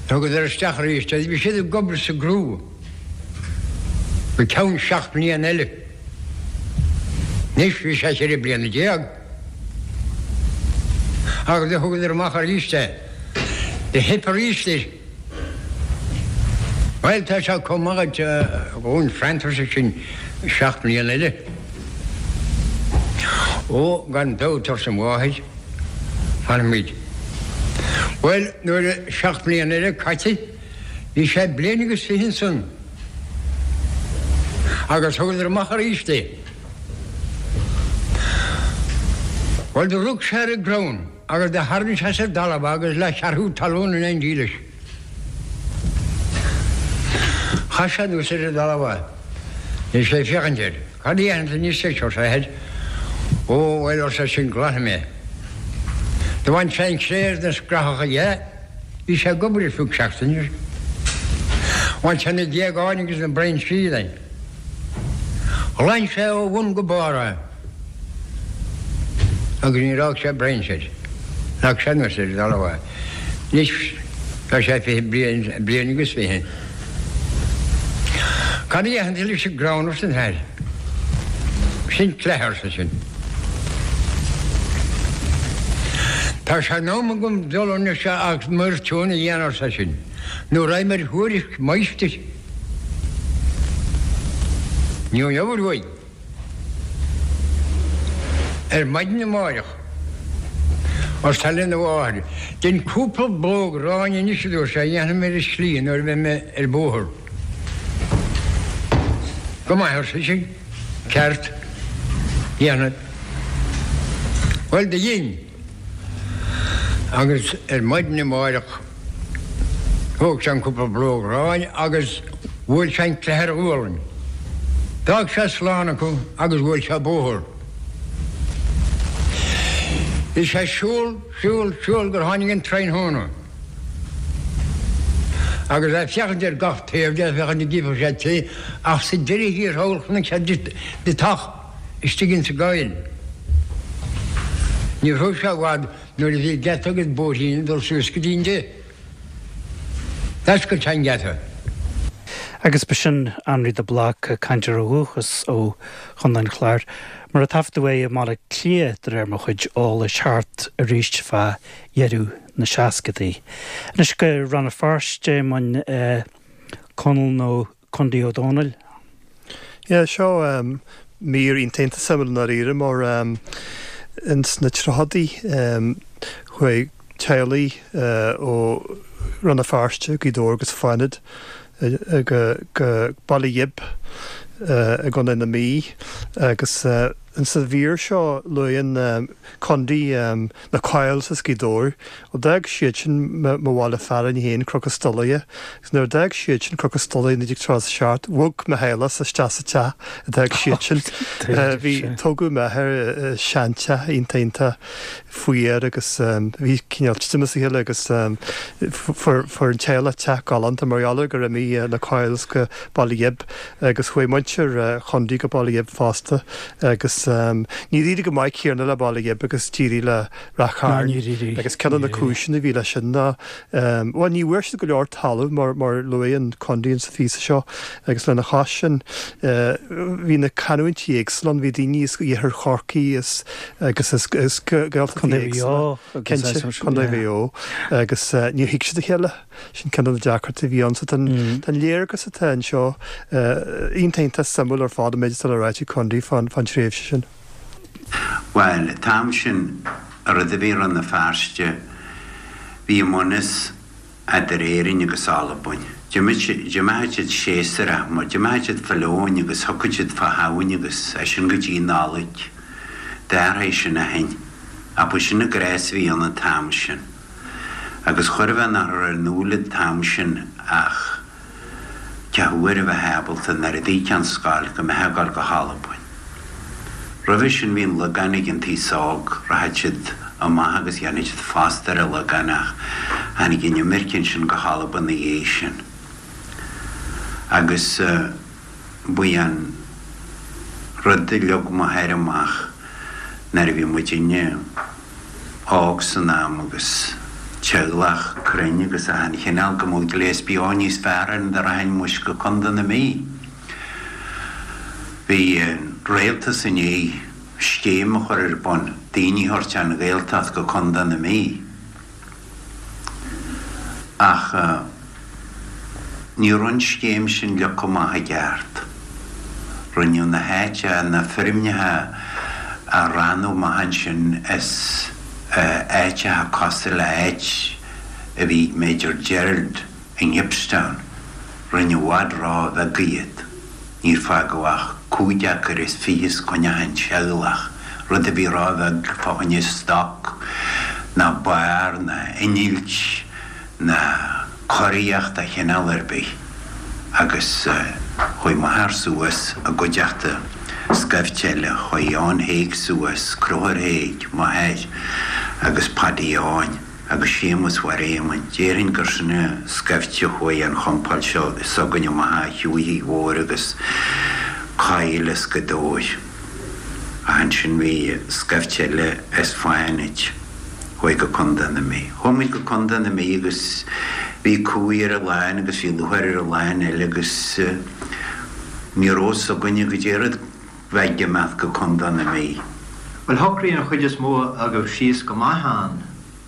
Thugadar isteach arís é. Bhí siad ag obair sa gcrú. Go ceann seacht mbliana eile. Anois bhí sé cheithre bliana déag. Agus do thugadar amach arís é. Do theip arís air. Bhuel, tá sé chomh maith duit dhúinn arsa sin seacht mbliana eile. Ó, gan dabht, arsa an mháthair, fanfaimid. Bhuel, nuair a seacht mbliana eile caite, Bhí sé bliain agus 20 ansan agus thugadar amach aríst é. Bhuel do rug sé ar an gcrann agus do tharraing sé as an dtalamh é agus leath-cheathrú talún in éindí leis. Chaith sé anuas ar an dtalamh é. Bhí sé ag féachaint air. Cad a dhéanfaidh tú anois leis, arsa a athair. Ó, bhuel, arsa eisean, glanfaidh mé é. Do bhain sé an chré agus na scrathacha dhe. Bhí sé ag obair ar feadh seachtaine. Bhain sé na géagáin agus na brainsí de. Ghlan sé ó bhun go barr é agus níor fhág sé brainse air. Leag sé anuas ar an dtalamh é. Anois tá sé 20 bliain, bliain agus 20. Cad a dhéanfaidh tú leis an gcrann arsa an t-athair. Sin cleith arsa sin. Tá sé in am agam dul anois agus m'fhoirtiún a dhéanamh arsa sin, nó raghaidh mé ar thuairisc máistir. Ní gheobhair uaidh. Ar maidin amáireach, arsa lena mháthair, dein cúpla blóg aráin anois a dúirt sé, a dhéanfaidh mé ar an slí nuair a bheidh mé ar bóthar. Go maith, arsa sise, ceart, dhéanfad. Bhuel, do dhein. Agus ar maidin amáireach thóg sé an cúpla blóg aráin agus bhuail sé an cleith ar a ghualainn. D'fhág sé slán acu agus bhuail sé bóthar. Bhí sé ag siúl, siúl, siúl gur tháinig an tráthnóna. Agus é ag féachaint ar gach taobh de, féachaint an gcífeadh sé tigh, ach sa deireadh thiar thall chonaic sé deatach istigh insa gcoill. Ní raibh sé i bhfad nuair a bhí geata agus bóithrín ag dul suas go dtí an dtigh. D'oscail sé an geata. Agus b'shin Anraí de Bláca, cainteoir ó dhúchas ó Chontae an Chláir, mar a taifeadadh é i mBaile Átha Cliath de réir mo chuid eolais thart arís fá dheireadh na seascadaí. Anois go Rann na Feirste, Éamoinn, Conall nó Condaí Ó Dónaill. Yeah, seo mír iontach iontach suimiúil i ndáiríre mar ins na tríochadaí chuaigh teaghlaigh ó Rann na Feirste, Gaoth Dobhair agus Fánaid go Baile Ghib i gContae na Mí agus. Insa mhír seo luann Condy na Coyles as Gaoth Dobhair. Ó d'fhág siad sin mo bhaile fearainn féin, Cnoc an Stolaire, agus nuair a d'fhág siad sin Cnoc an Stolaire i 1937, bhog mo theaghlachsa isteach sa teach a d'fhág siad sin. Bhí, tógadh m'athair i seanteach iontach iontach fuar agus bhí cineál titim as a chéile agus fuair an teaghlach teach galánta mar gheall ar gur imigh na Coyles go Baile Ghib agus chuaigh muintir Chondy go Baile Ghib fosta agus níor éirigh go maith céanna le Baile Ghib agus d'éirigh le Rath Cairn agus ceann de na cúiseanna a bhí leis sin ná, bhuel, ní bhfuair siad go leor talaimh mar mar luann Condy insa phíosa seo agus lena chois sin bhí na canúintí éagsúla ann, bhí daoine as iarthar Chorcaí is agus as Gaeltachtaí éagsúla, cinnte, Contae Mhaigh Eo agus níor thuig siad a chéile. Sin ceann de na deacrachtaí a bhí ann. So tá an léargas atá anseo iontach iontach suimiúil ar fad an méid atá le ráit ag Condy fán tréimhse sin. Bhuel, an t-am sin, rud a bhí i Rann na Feirste, bhí iomaíocht eadar Éirinn agus Albain. D'imeochadh siad séasúrach, mar d'imeochadh siad fá leoin agus thiocfadh siad fá Shamhain agus as sin go dtí Nollaig. D'athraigh sin ó shin. Ach ba sin an gnás a bhí ann an t-am sin. Agus chóir a bheith nach raibh ar an ndúil an t-am sin ach cá huair a bheith ábalta nuair a d'íocfá an scoil go mbeifeá ag dul go hAlbain. Roimhe sin bhí an Lagán ag an t-aos óg, rachadh siad amach agus dhéanfadh siad post ar an Lagán ach tháinig an imirce ansin go hAlbain ina dhiaidh sin. Agus ba é an rud a leag m'athair amach nuair a bhí muidinne, óg san am agus teaghlach cruinn agus achan chineál go mbeadh gléas beo níos fearr orainn dá rachainn muis go Contae na Mí. Bhí an rialtas i ndiaidh scéim a chur ar bun, daoine a thabhairt ón Ghaeltacht go Contae na Mí. Ach ní raibh an scéim sin leagtha amach i gceart. Rinneadh na háiteacha, na feirmeacha a roghnú amach ansin as áiteacha cosúil le áit a bhí ag Major Gerald i nGibbstown. Rinneadh i bhfad ró-bheag iad. Níor fágadh ach cúig acre is fiche os coinne achan teaghlach, rud a bhí ró-bheag fá choinne stoc ná barr ná innilt ná cóiríocht de chineál ar bith agus chuaigh m'athair suas i gcuideachta scaifte eile, chuaigh Eoin Thaidhg suas, Conchúr Thaidhg, m'athair, agus Paddy Eoin. agus Séamus Mháire Éamoinn. Déarfainn gur sin an scaifte a chuaigh an chompáil seo s'againne amach a Shiúichigh Mhóir agus Coill as Gaoth Dobhair. Ach ansin bhí scaifte eile as Fánaid. Chuaigh go Contae na Mí. Chuaigh muid go Contae na Mí agus bhí cumhaidh ar an lán agus bhí lúcháir ar an lán eile agus ní raibh fhios againne goidé rud bheith ag imeacht go Contae na Mí. Bhuel, shocraigh an chuid is mó agaibh síos go maith ann.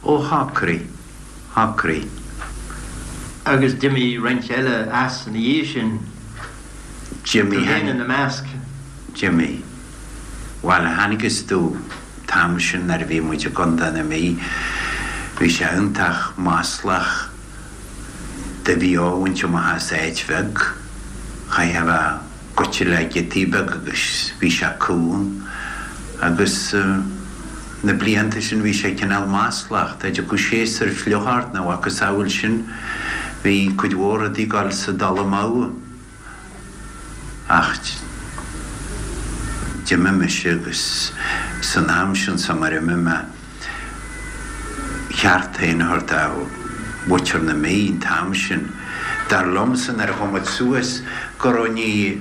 Ó shocraigh, shocraigh. Agus d'imigh roinnt eile as ina dhiaidh sin, D'imigh, tú féin ina measc. D'imigh. Bhuel, thángthas domh an t-am sin nuair a bhí muid i gContae na Mí, bhí sé iontach maslach do bhí á bhaint amach as áit bheag. Chaithfeá a bheith goite le giotaí beaga agus bhí sé cúng agus na blianta sin bhí sé cineál maslach. Dá dtiocfadh séasúr fliuch ort nó a mhacasamhail sin bhí cuid mhór rudaí ag dul sa dul amú. Ach d'imigh mise agus san am sin sa mar imigh mé cheart féin a thabhairt do mhuintir na Mí an t-am sin. Dar liomsa nuair a chuaigh muid suas go raibh ní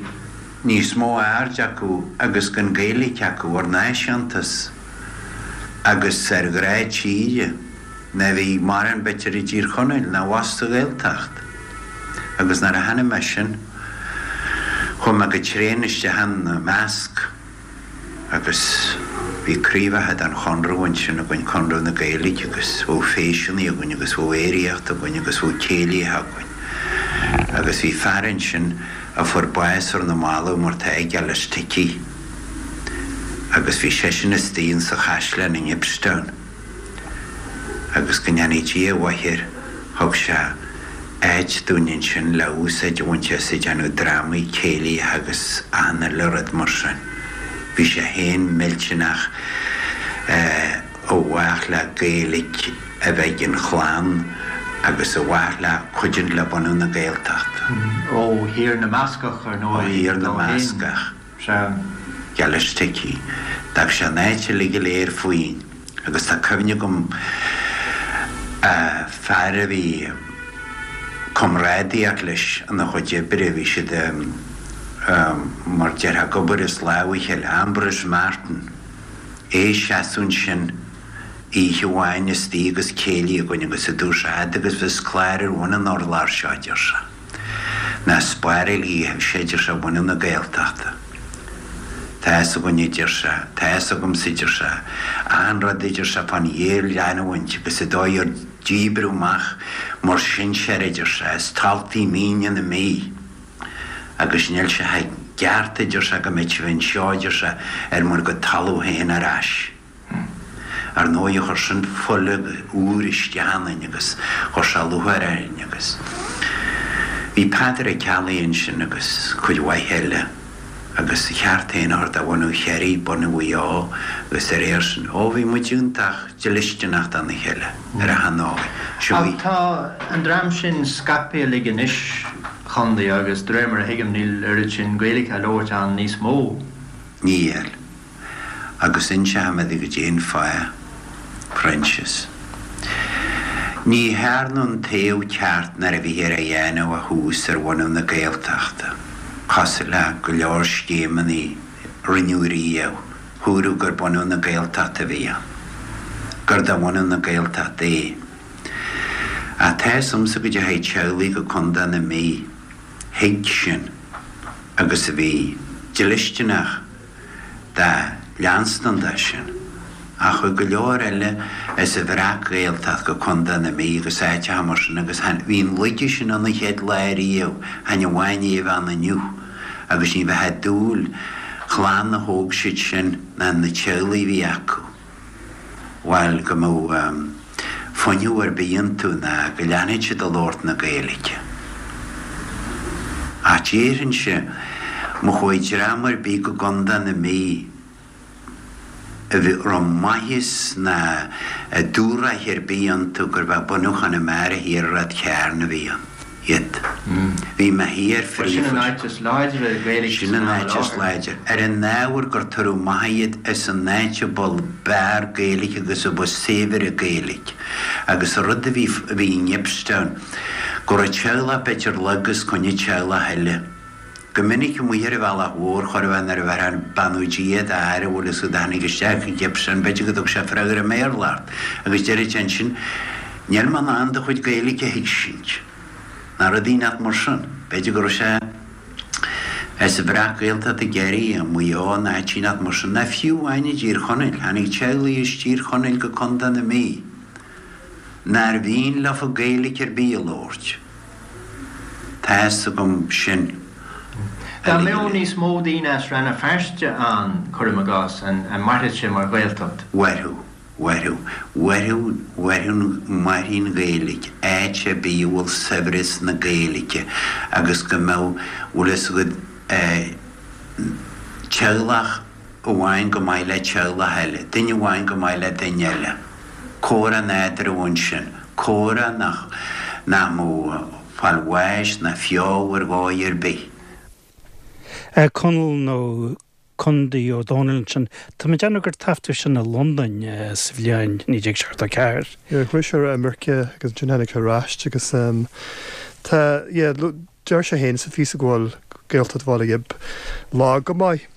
níos mó aird acu agus den Ghaeilge acu ar náisiúntas agus ar ghrá tíre ná bhí mórán b'fhéidir i dTír Chonaill ná abhus sa Ghaeltacht. Agus nuair a chonaic mé sin chuaigh mé go tréan isteach ina measc. Agus bhí craobhacha den Chonradh ansin againn, Conradh na Gaeilge, agus bheadh feiseanna againn agus bheadh aeraíocht againn agus bheadh céilithe againn. Agus bhí fear ansin a fuair bás ar na mallaibh mar tá ag Ellis Tickey. Agus bhí seisean istigh insa chaisleán i nGibbstown. Agus go ndéanfaidh Dia a mhaith air, thug sé áit dúinn ansin le úsáid a bhaint as ag déanamh drámaí, céilithe agus achan uile rud mar sin. Bhí sé féin millteanach i bhfách le Gaeilge a bheith ag an chlann agus i bhfách le cuidiúint le bunú na Gaeltachta. Ó Thír na mBascach, ar ndóigh, Ó Thír na mBascach. Sea. Geall leis tuigthe. D'fhág sé an áit uilig go léir faoin agus tá cuimhne agam fear a bhí comrádaíocht leis ina chuid oibre, bhí siad mar déarfá ag obair as lámh a chéile, Ambrose Martin, é ag seasamh ansin oíche amháin istigh agus céilí againn agus a dúirt sé, fhad agus bheas clár ar bhun an urláir seo, a deir sé. Ná spáráil a sé, deir sé, bunú na Gaeltachta. Tá fhios againn, a deir sé, tá fhios agamsa, a deir sé, achan rud, a deir sé, fán ghéarleanúint agus an dóigh ar díbreadh amach muir sinsear, a deir sé, as taltaí míne na Mí agus níl sé ceart, a deir sé, go mbeadh sibh anseo, a deir sé, ar bhur gcuid talamh féin ar ais. Ar ndóigh, chuir sin fuil úr isteach ionainn agus chuir sé lúcháir orainn agus bhí Peadar Ó Ceallaigh ansin agus cuid mhaith eile agus a cheart féin a thabhairt do bhunú Chiarraí, bunú Mhaigh Eo agus de réir sin, ó bhí muid iontach dlisteanach dona chéile ar achan ndóigh. Ach tá an dream sin scaipthe uilig anois, a Chondae, agus de réir mar a thuigim níl oiread sin Gaeilge á labhairt ann níos mó. Níl. Agus inseoidh mé duit goidé an fáth, Proinsias. Ní thearnadh an taobh ceart nuair a bhíthear á dhéanamh ó thús ar bhunú na Gaeltachta, cosúil le go leor scéimeanna a rinneadh riamh, húradh gur bunú na Gaeltachta a bhí ann, gur do bhunú na Gaeltachta é. Ach tá fhios a'msa go dteachaigh teaghlaigh go Contae na Mí, thuig sin agus a bhí dlisteanach do leanstan de sin. Ach chuaigh go leor eile as an Bhreac-Ghaeltacht go Contae na Mí agus áiteacha mar sin agus bhí an laige sin ann an chéad lá riamh, chan amháin é a bheith ann inniu agus ní bheifeá ag dúil chlann a thóg siad sin ná na teaghlaigh a bhí acu. bhuel, go mbeadh fuinneamh ar bith iontu ná go leanfadh siad ag labhairt na Gaeilge. Ach déarfainnse, má chuaigh dream ar bith go gContae na Mí a raibh maitheas ná dúthracht ar bith iontu gurbh é bunú Chonamara Thiar i Ráth Chairn a bhí ann. iad. Bhí mé thiar Bhuel, sin an áit is láidre Gaeilge Sin an áit is láidre. Ar an ábhar gur tugadh amach iad as an áit a ba b'fhearr Gaeilge agus a ba saibhre Gaeilge. Agus an rud a bhí a bhí i nGibbstown, go raibh teaghlach b'fhéidir lag os coinne teaghlach eile. Go minic amuigh ar an bhealach mhór, chóir a bheith nuair a bheifeá ag beannú Dia d'fhear a bhfuil fhios agat a tháinig isteach i Gibbstown, b'fhéidir go dtug sé freagra i mBéarla ort, agus deireadh sé ansin, Níl mé in ann do chuid Gaeilge a thuigsint. Ná rud inteacht mar sin. B'fhéidir go raibh sé as an Bhreac-Ghaeltacht i gCiarraí, i Maigh Eo, nó áit inteacht mar sin, ná fiú amháin i dTír Chonaill. Tháinig teaghlaigh as Tír Chonaill go Contae na Mí nár mhian leofa Gaeilge ar bith a labhairt. Tá fhios agam sin. Dá mbeadh níos mó daoine as Rann na Feirste ann, cuirim i gcás, an mairfeadh sé mar Ghaeltacht? Mhairfeadh. Mhairfeadh. Mhairfeadh, mhairfeadh, mairfidh an Ghaeilge, áit ar bith a bhfuil saibhreas na Gaeilge agus go mbeadh, bhfuil fhios agat, eh, teaghlach amháin go maith le teaghlach eile, duine amháin go maith le duine eile. Comhrá nádúrtha ansin, comhrá nach, nach mbeadh fáil bháis ná feall ar dhóigh ar bith. Conall nó Condaí Ó Dónaill ansin. Tá mé ag déanamh gur taifeadadh sin i Londain sa bhliain 1974. Yeah, chuaigh sé ar imirce agus ansin tháinig sé ar ais agus tá, yeah, deir sé féin sa phíosa go bhfuil Gaeltacht Bhaile Ghib lag go maith.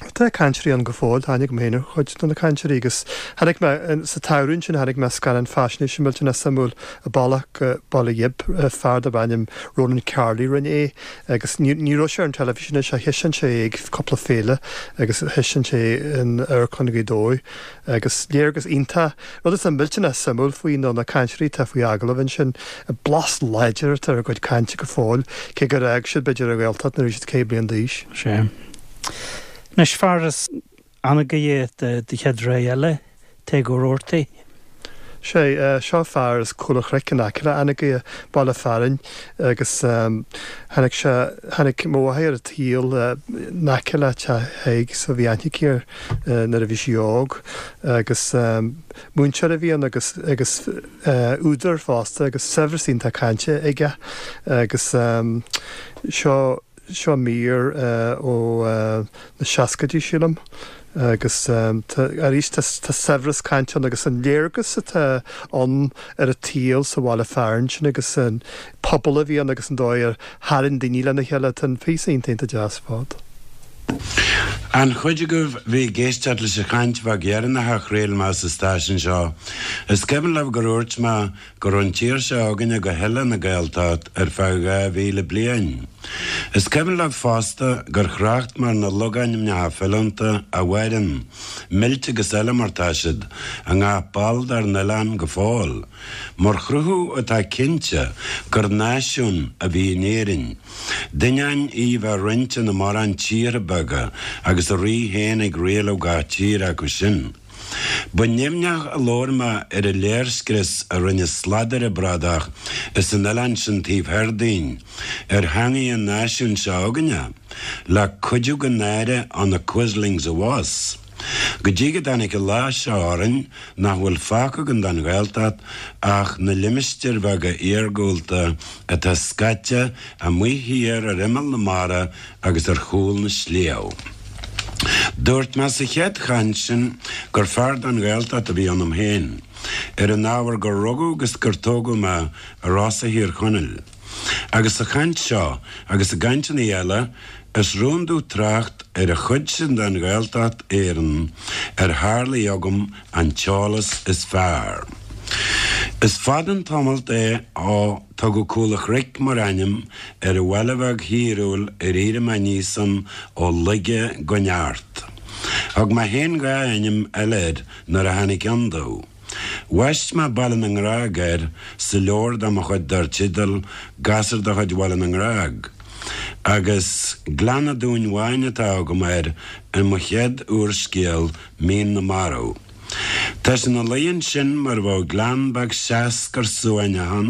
Tá cainteoirí ann go fóill, tá aithne agam féin ar chuid de na cainteoirí agus chonaic mé, sa tsamhradh ansin chonaic mé scannán faisnéise millteanach suimiúil An Bealach go Baile Ghib, fear darb ainm Ronan Carley rinne é. Agus ní raibh sé ar an teilifís anois ach thaispeáin sé é ag cúpla féile agus thaispeáin sé é in Amharclann Ghaoth Dobhair agus léargas iontach. Rud atá millteanach suimiúil faoi ná na cainteoirí atá faoi agallamh ansin, blas láidir atá ar a gcuid cainte go fóill, cé gur fhág siad b'fhéidir an Ghaeltacht nuair a bhí siad 100 bliain d'aois. Sea. Anois, fear as Anagaire de chéad rogha eile, Tadhg Ó Rabhartaigh. Sé, seo fear as Cúl an Chnoic in aice le Anagaire, baile fearainn, agus tháinig sé, tháinig mo mháthair ar an tsaol in aice le teach Thaidhg so bhí aithne aici air nuair a bhí sí óg agus múinteoir a bhí ann agus, agus údar fosta agus saibhreas iontach cainte aige agus seo, Seo mír ó na seascaidí, sílim, agus arís tá saibhreas cainte ann agus an léargas atá ann ar an tsaol sa bhaile fearainn sin agus an pobal a bhí ann agus an dóigh ar tharraing daoine lena chéile. Tá an píosa iontach iontach deas ar fad. An chuid agaibh bhí ag éisteacht leis an chaint bheag dheireanach a chraol mé sa stáisiún seo, is cuimhin libh gur dhúirt mé go raibh an tír seo againne go huile ina Gaeltacht ar feadh 2,000 bliain. Is cuimhin libh fosta gur thrácht mé ar na logainmneacha filiúnta a mhaireann, millte agus eile mar tá siad, i ngach ball dár n-oileán go fóill, mar chruthú atá cinnte gur náisiún a bhí in Éirinn, d'ainneoin í bheith roinnte ina mórán tíortha beaga agus a rí féin ag rialú gach tír acu sin. Ba nimhneach a labhair mé ar an léirscrios a rinne sladaire bradach as an oileán sin taobh thoir dínn ar theangaidh an náisiúin seo againne, le cuidiú den náire ó na quislings abhus. Go dtí go dtáinig an lá seo orainn nach bhfuil fágtha againn den Ghaeltacht ach na limistéir bheaga iargúlta atá scaite amuigh thiar ar imeall na mara agus ar chúl na sliabh. Dúirt mé sa chéad chaint sin gur fear den Ghaeltacht a bhí ionam féin, ar an ábhar gur rugadh agus gur tógadh mé i Rosa Thír Chonaill. Agus sa chaint seo, agus i gcainteanna eile, is rún domh trácht ar an chuid sin den Ghaeltacht Éireann ar tharlaigh agam an t-eolas is fearr. Is fada an tamalt é ó tugadh Cúl a' Chnoic mar ainm ar an bhaile bheag thíriúil ar éirigh mé aníos ann ó laige go neart. Thug mé féin dha ainm eile air nuair a tháinig ann domh. Bhaist mé Baile na nGrág air sa leabhar de mo chuid dar teideal Gasúr de chuid Bhaile na nGrág, agus Gleann a' Dúin Bháin atá agam air i mo chéad úrscéal Mín na Marbh. Tá sé ina luí ansin mar a bheadh gleann beag seascair suaimhneach ann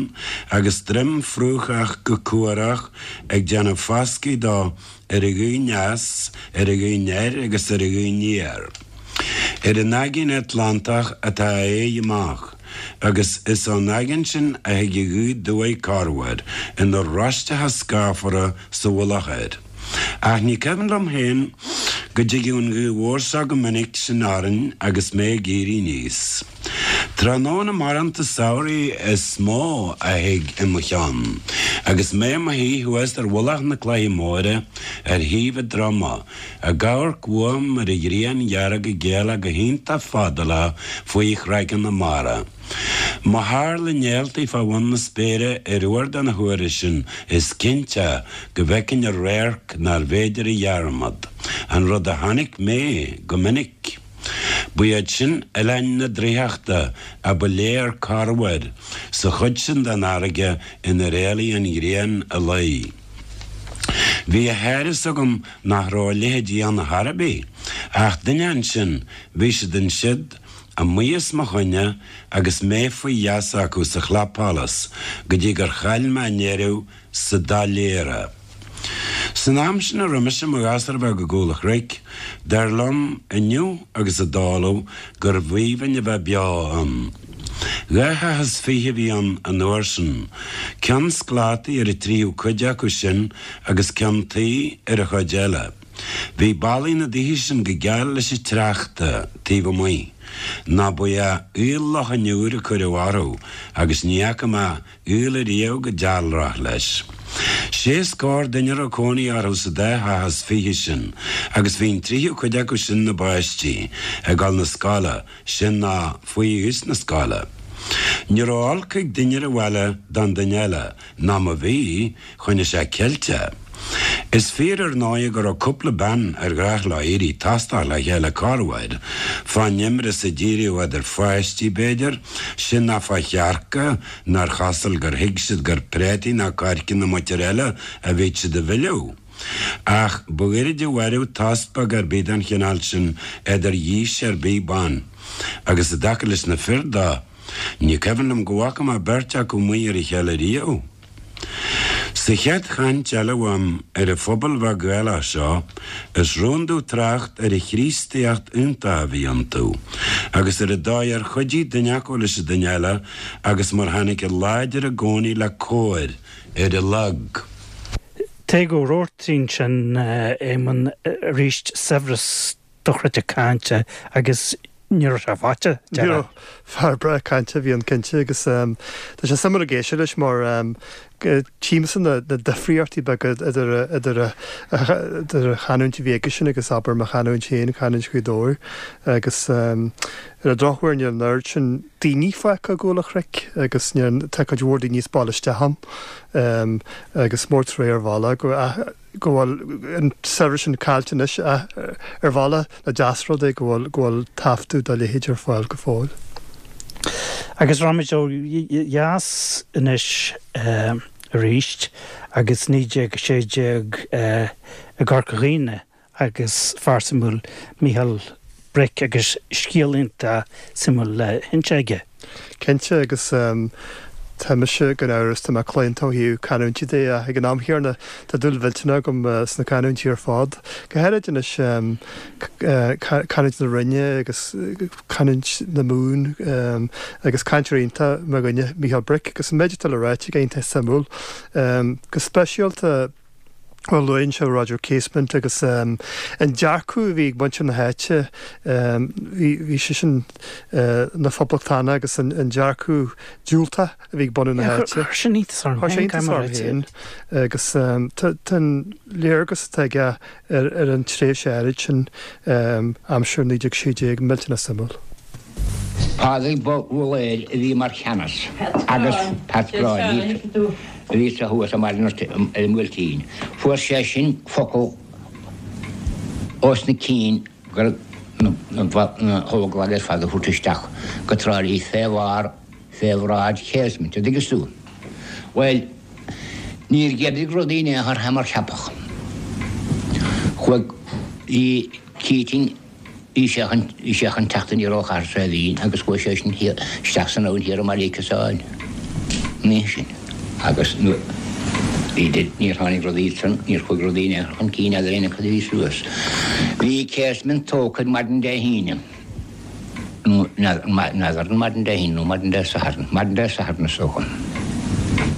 agus droim fraochach go cuarach ag déanamh foscaidh dó ar a ghaoth aneas, ar a ghaoth anoir agus ar a ghaoth aniar. Ar an Aigéan Atlantach atá a aghaidh amach agus is ón aigéan sin a thig an ghaoth aduaidh corruair ina roisteacha scáfara sa mhullach air. Ach ní cuimhin liom féin go dtigeadh an ghaoth mhór seo go minic sin orainn agus mé ag éirí aníos. Tráthnóna marbhánta samhraidh is mó a thig i mo cheann, agus mé i mo shuí thuas ar mhullach na Cloiche Móire ar thaobh an droma, ag amharc uaim ar an ghrian dhearg ag éalach go hiontach fadálach faoi chraiceann na mara. Má tharla néaltaí fá bhun na spéire ar uair de na huaire sin is cinnte go bhfeicfinn radharc nárbh fhéidir a dhearmad, an rud a chonaic mé go minic. Ba iad sin Oileáin na Draíochta a ba léir corruair sa chuid sin den fharraige inar éalaigh an ghrian a luí. Bhí a shár-fhios agam nach raibh a leithéidí ann chor ar bith, ach duine ansin, bhí siad ansiud, amuigh os mo choinne agus mé faoi gheasa acu sa chlapsholas go dtí gur chaill mé i ndeireadh sa doiléire. San am sin a raibh mise i mo ghasúr bheag i gCúl a' Chnoic, dar liom inniu agus i dtólamh gurbh aoibhinn a bheith beo ann. Dha theach is fiche a bhí ann an uair sin, ceann sclátaí ar an tríú cuid acu sin agus ceann tuí ar an chuid eile. Bhí ballaí na dtithe sin go geal leis an tsneachta taobh amuigh, nó ba ea aol Loch an Iúir a cuireadh orthu agus ní fhaca mé aol ariamh chomh dealrach leis. Sé scór duine a raibh cónaí orthu sa dá theach is fiche sin agus bhí an tríú cuid acu sin ina bpáistí ag dul 'na scoile, sin nó faoi aois na scoile. Ní raibh olc ag duine ar an bhaile don duine eile, ná má bhí, choinnigh sé ceilte. Is fíor ar ndóighe go raibh cúpla bean ar ghnách leo éirí tostach le chéile corruair, fán imreas a d'éiríodh idir pháistí, b'fhéidir, sin ná fá chearca nár chosúil gur thuig siad gur préataí ná coirce na muintire eile a bhíodh siad a mhilleadh. Ach ba ghoirid a mhaireadh tost beag ar bith den chineál sin idir dhís ar bith ban, agus i dtaca leis na fir de. Ní cuimhin liom go bhfaca mé beirt acu amuigh ar a chéile riamh. Sa chéad chaint eile uaim ar an phobal bheag Ghaelach seo, is rún domh trácht ar an Chríostaíocht iontach a bhí iontu, agus ar an dóigh ar chuidigh duine acu leis an duine eile agus mar tháinig an láidir i gcónaí le cóir ar an lag. Tadhg Ó Rabhartaigh ansin, Éamonn, arís saibhreas dochreidte cainte agus ní raibh sé faighte, Ní raibh. Fear breá cainte a bhí ann cinnte agus tá sé suimiúil ag éisteacht leis mar tchímse na difríochtaí beaga idir idir idir an chanúint a bhí aigesean agus abair mo chanúint féin, canúint Ghaoth Dobhair agus ar an drochuair níl an oiread sin daoine fágtha i gCúil an Chnoic agus níl tá cuid mhór daoine as baile isteach ann agus mór trua ar bhealach go go bhfuil an saibhreas sin caillte anois ach ar bhealach nach deas rud é go bhfuil go bhfuil taifeadadh dá leithéid ar fáil go fóill. Agus raghaimid ó dheas anois arís agus 1916 i gCorca Dhuibhne agus fear suimiúil Mícheál Bric agus scéal iontach suimiúil le hinse aige. Cinnte, agus tá mise gan amhras, tá mé claonta ó thaobh canúintí de ach ag an am chéanna tá dúil mhillteanach agam sna canúintí ar fad. Go háirid anois canúint na Rinne agus canúint na Mumhan agus cainteoir iontach mo dhuine Mícheál Bric agus an méid atá le ráite aige iontach suimiúil. Go speisialta, Bhuel, luann sé Roger Casement agus an dearcadh a bhí ag muintir na háite, bhí seisean ina phoblachtánach agus an dearcadh diúltach a bhí ag bunadh na háite. Chuir sin iontas orm féin, caithfidh mé a ráit. Féin agus tá an léargas atá aige ar an tréimhse áirid sin, aimsir 1916, millteanach suimiúil. Pádraig Búlaeir a bhí mar cheannas agus Pat Gráinne a bhí sa thuas i mBaile an Bhuailtín. Fuair sé sin focal ós na cinn gur na hÓglaigh ar fad a thabhairt isteach go Trá Lí fé bharr fé bhráid Casement, a dtuigeas tú. Bhuel, níor dh'oibrigh rudaí in aon chor fé mar ceapadh. Chuaigh, bhí Keating, Bhí sé chun, bhí sé chun teacht aniar ó Chathair Saidhbhín agus chuaigh sé sin thiar, isteach san abhainn thiar i mBaile Chiosáin an oíche sin agus nuair, bhí, níor tháinig rudaí ansan, níor chuaigh rudaí in aon chor chun cinn eadar aon acu a bhí suas. Bhí Casement tógtha ar maidin Dé hAoine, nó n'fheadar, n'fheadar an maidin Dé hAoine nó maidin Dé Sathairn, maidin Dé Sathairn is dócha,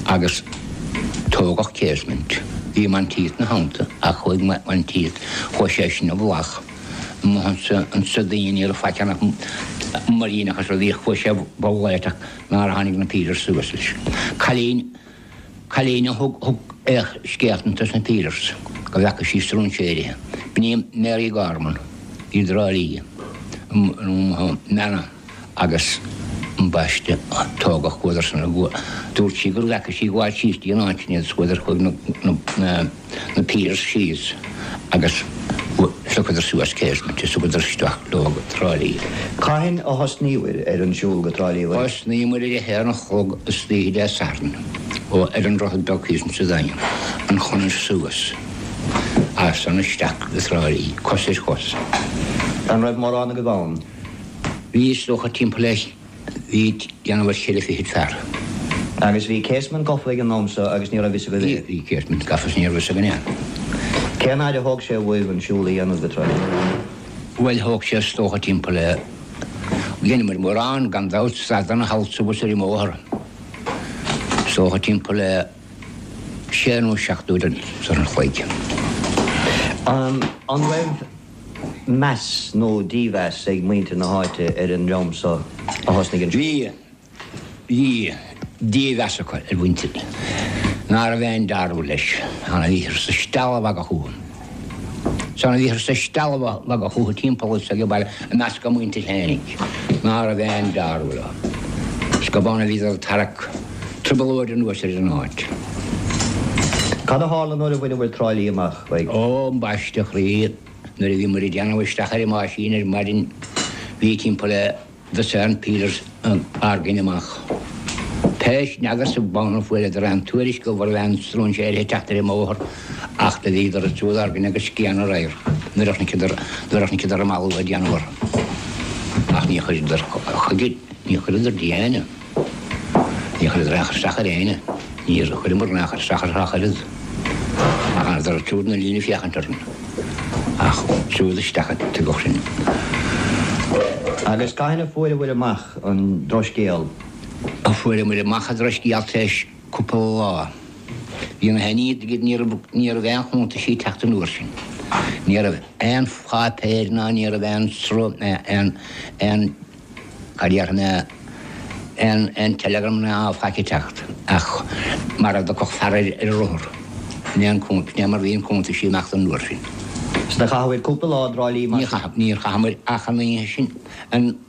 agus tógadh Casement. Bhí Monteith 'na theannta ach chuaigh Monteith, chuaigh sé sin i bhfolach. Amuigh ansa daoine ní raibh faic ann ach muiríneach is rudaí chuaigh sé i bhfolach ach nár tháinig na pílears suas leis. Cailín, cailín a thug, thug scéalta dos na pílears go bhfeaca sí stróinséirithe. B'in í Mary Gorman i dTrá Lí, nó Meanna. Agus ambaiste, tógadh chuadar san dúirt sí go bhfeaca sí gabháil síos dtí an áit sin iad is chuadar chuaigh na na pílears síos agus phiocadar suas Casement is thugadar isteach leo go Trá Lí. Cathain a thosnaíobhair ar an siúl go Trá Lí? Thosnaíomair ar a haon a chlog istoíche Dé Sathairn ó ar an Droichead Beag thíos insa Daingean, an chonair suas as san isteach go Trá Lí, cos ar chos. An raibh mórán agaibh ann? Bhí is dócha timpeall le, bhí déanamh ar cheithre fichid fear. Agus bhí Casement gafa ag an am so agus ní raibh fhios agaibh é? Bhí Casement gafa is ní raibh fhios againn é. Cén fhaid a thóg sé uaibh an siúl a dhéanamh go Trá Lí? Bhuel thóg sé is dócha timpeall le, dheineamair mórán gan dabht, stadanna thall is abhus ar an mbóthar. Is dócha timpeall le sé nó seacht uair an chloig. An raibh meas nó dímheas ag muintir na háite ar an ndream so a thosnaigh an siúl? Bhí, bhí dímheas acu ar mhuintir ná raibh aon dealramh leis. Ann a bhíothar sa stealladh magaidh fúthu. Is ann a bhíothar sa stealladh magaidh fúthu timpeall is ag baile i measc a muintir fhéinig ná raibh aon dealramh leo. Is gurb ann a bhíodar ag tarrac trioblóid anuas ar an áit. Cad a tharla nuair a bhaineabhair Trá Lí amach? Ó, ambaiste a chroí, nuair a bhí muid ag déanamh isteach ar an meaisín ar maidin, bhí timpeall le dosaen pílears ár gcoinne amach. Pé, n'fheadar sa bhonn an fuaireadar aon tuairisc go raibh aon stróinséirithe ag teacht ar an mbóthar ach do bhíodar ag siúl ár gcoinne agus scian an radharc nuair a chonaiceadar, nuair a chonaiceadar an malú ag déanamh orthu. Ach ní chuireadar chuige. Níor chuireadar de éinne. Níor chuireadar aon chur isteach ar éinne. Níor chuireamar aon chur isteach orthu ach oiread. Ach d'fhanadar siúd ina líne ag féachaint orainn. Ach siúd isteach a tugadh sinn. Agus cathain a fuaireabhair amach an drochscéal? Fuaireamar amach an drochscéal tar éis cúpla lá. Bhí na haon ní raibh ní raibh aon chuntaisí ag teacht an uair sin. Ní raibh aon pháipéir ná ní raibh aon sruth aon aon cad déarfaidh mé aon aon telegram ná faic ag teacht ach mar a dtiocfadh fear ar ar rothar. Sin é an sin é mar bhí an cuntaisí amach an uair sin. Is do chaitheabhair cúpla lá i dTrá Lí mar sin? Níor chaith níor chaitheamar ach an oíche sin an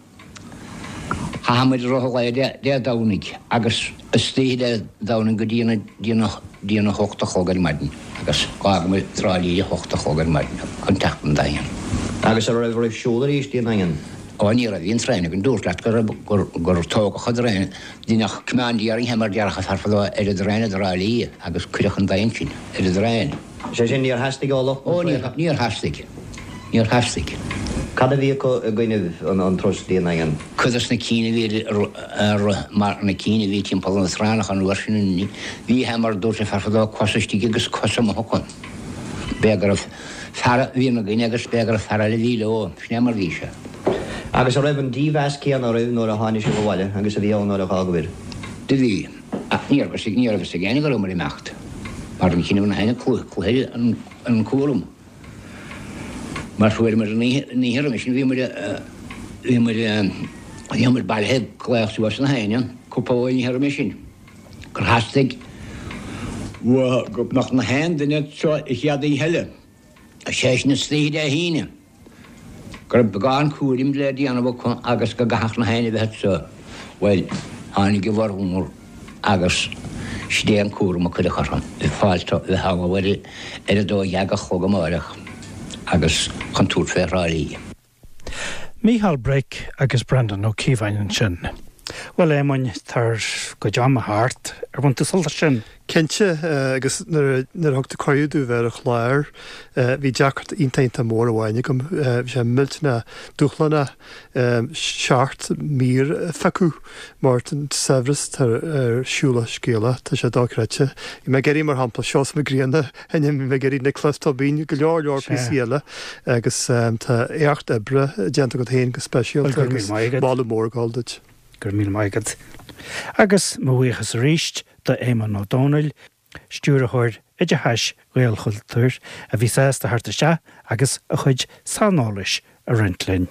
Chaitheamar i rith an lae Dé Domhnaigh agus istoíche Dé Domhnaigh go dtí dtí a hocht a chlog ar maidin agus d'fhágamar Trá Lí a hocht a chlog ar maidin chun teacht 'on Daingean. Agus an raibh oraibh siúl arís dtí an Daingean? Ó ní raibh, bhí an traein againn, dúrt leat go raibh, gur, gur tógadh an traein, deineadh commandeering mar déarfadh an fear fadó ar an dtraein i dTrá Lí agus cuireadh chun Daingin sinn ar an dtraein. Sé sin, níor theastaigh ó lucht na Ó, níor, níor theastaigh. Níor theastaigh. Cad a bhí acu i gcoinnibh an turas dtí an nDaingean? Cuid dos na cinn a bhí ar, ar, mar na cinn a bhí timpeall na traenach an uair sin, bhí, mar a dúirt an fear fadó, cos istigh agus cos amuigh acu. B'fhéidir go raibh fear a bhí ina gcoinne agus b'fhéidir go raibh fear eile a bhí leo. Sin é mar a bhí sé. Agus an raibh an dímheas céanna oraibh nuair a tháinig sibh abhaile agus a bhí ann nuair a dh'fhágabhair? Do bhí. Ach ní raibh ní raibh fhios ag éinne go rabhamar ag imeacht, mar an chinneadh na hainne cluiche an cúram. Mar fuaireamar an oíche an oíche roimhe sin bhíomar bhíomar bhíomar bailithe ag glaoch suas na héinne cúpla uair an oíche roimhe sin gur theastaigh uathu go mbeadh na haon duine anseo an chéad oíche eile, sé sin istoíche Dé hAoine. go raibh beagán cúraim le déanamh acu agus go gcaithfeadh na héinne bheith anseo. Bhuel, tháinig a bhformhór agus sin é an cúram a cuireadh orthu, fáilt a bheith ullamh ar ar a 12 a chlog amáireach agus chun tabhairt fé Thrá Lí. Mícheál Break agus Breandán Ó Cíobháin ansin. Bhuel, a Éamoinn, tá ár gcuid ama thart. Ar bhain tú sult as sin? Cinnte, agus nuair a thug tú cuireadh domh bheith ar an chlár, bhí deacracht iontach iontach mór amháin agam. Bhí sé millteanach dúshlánach seacht mír a phiocadh mar an saibhreas atá ar Siúlach Scéalach, tá sé dochreidte. Bhí mé ag iarraidh, mar shampla, Seosamh Mac Grianna a sheinm, bhí mé ag iarraidh Nioclás Tóibín, go leor leor píosaí eile agus tá éacht oibre déanta agat féin go speisialta agus moladh mór ag dul duit. Go raibh míle maith agat. Agus mo bhuíochas arís do Éamonn Ó Dónaill, Stiúrthóir Oideachais Ghaelchultúir, a bhí sásta theacht isteach agus a chuid saineolais a roinnt linn.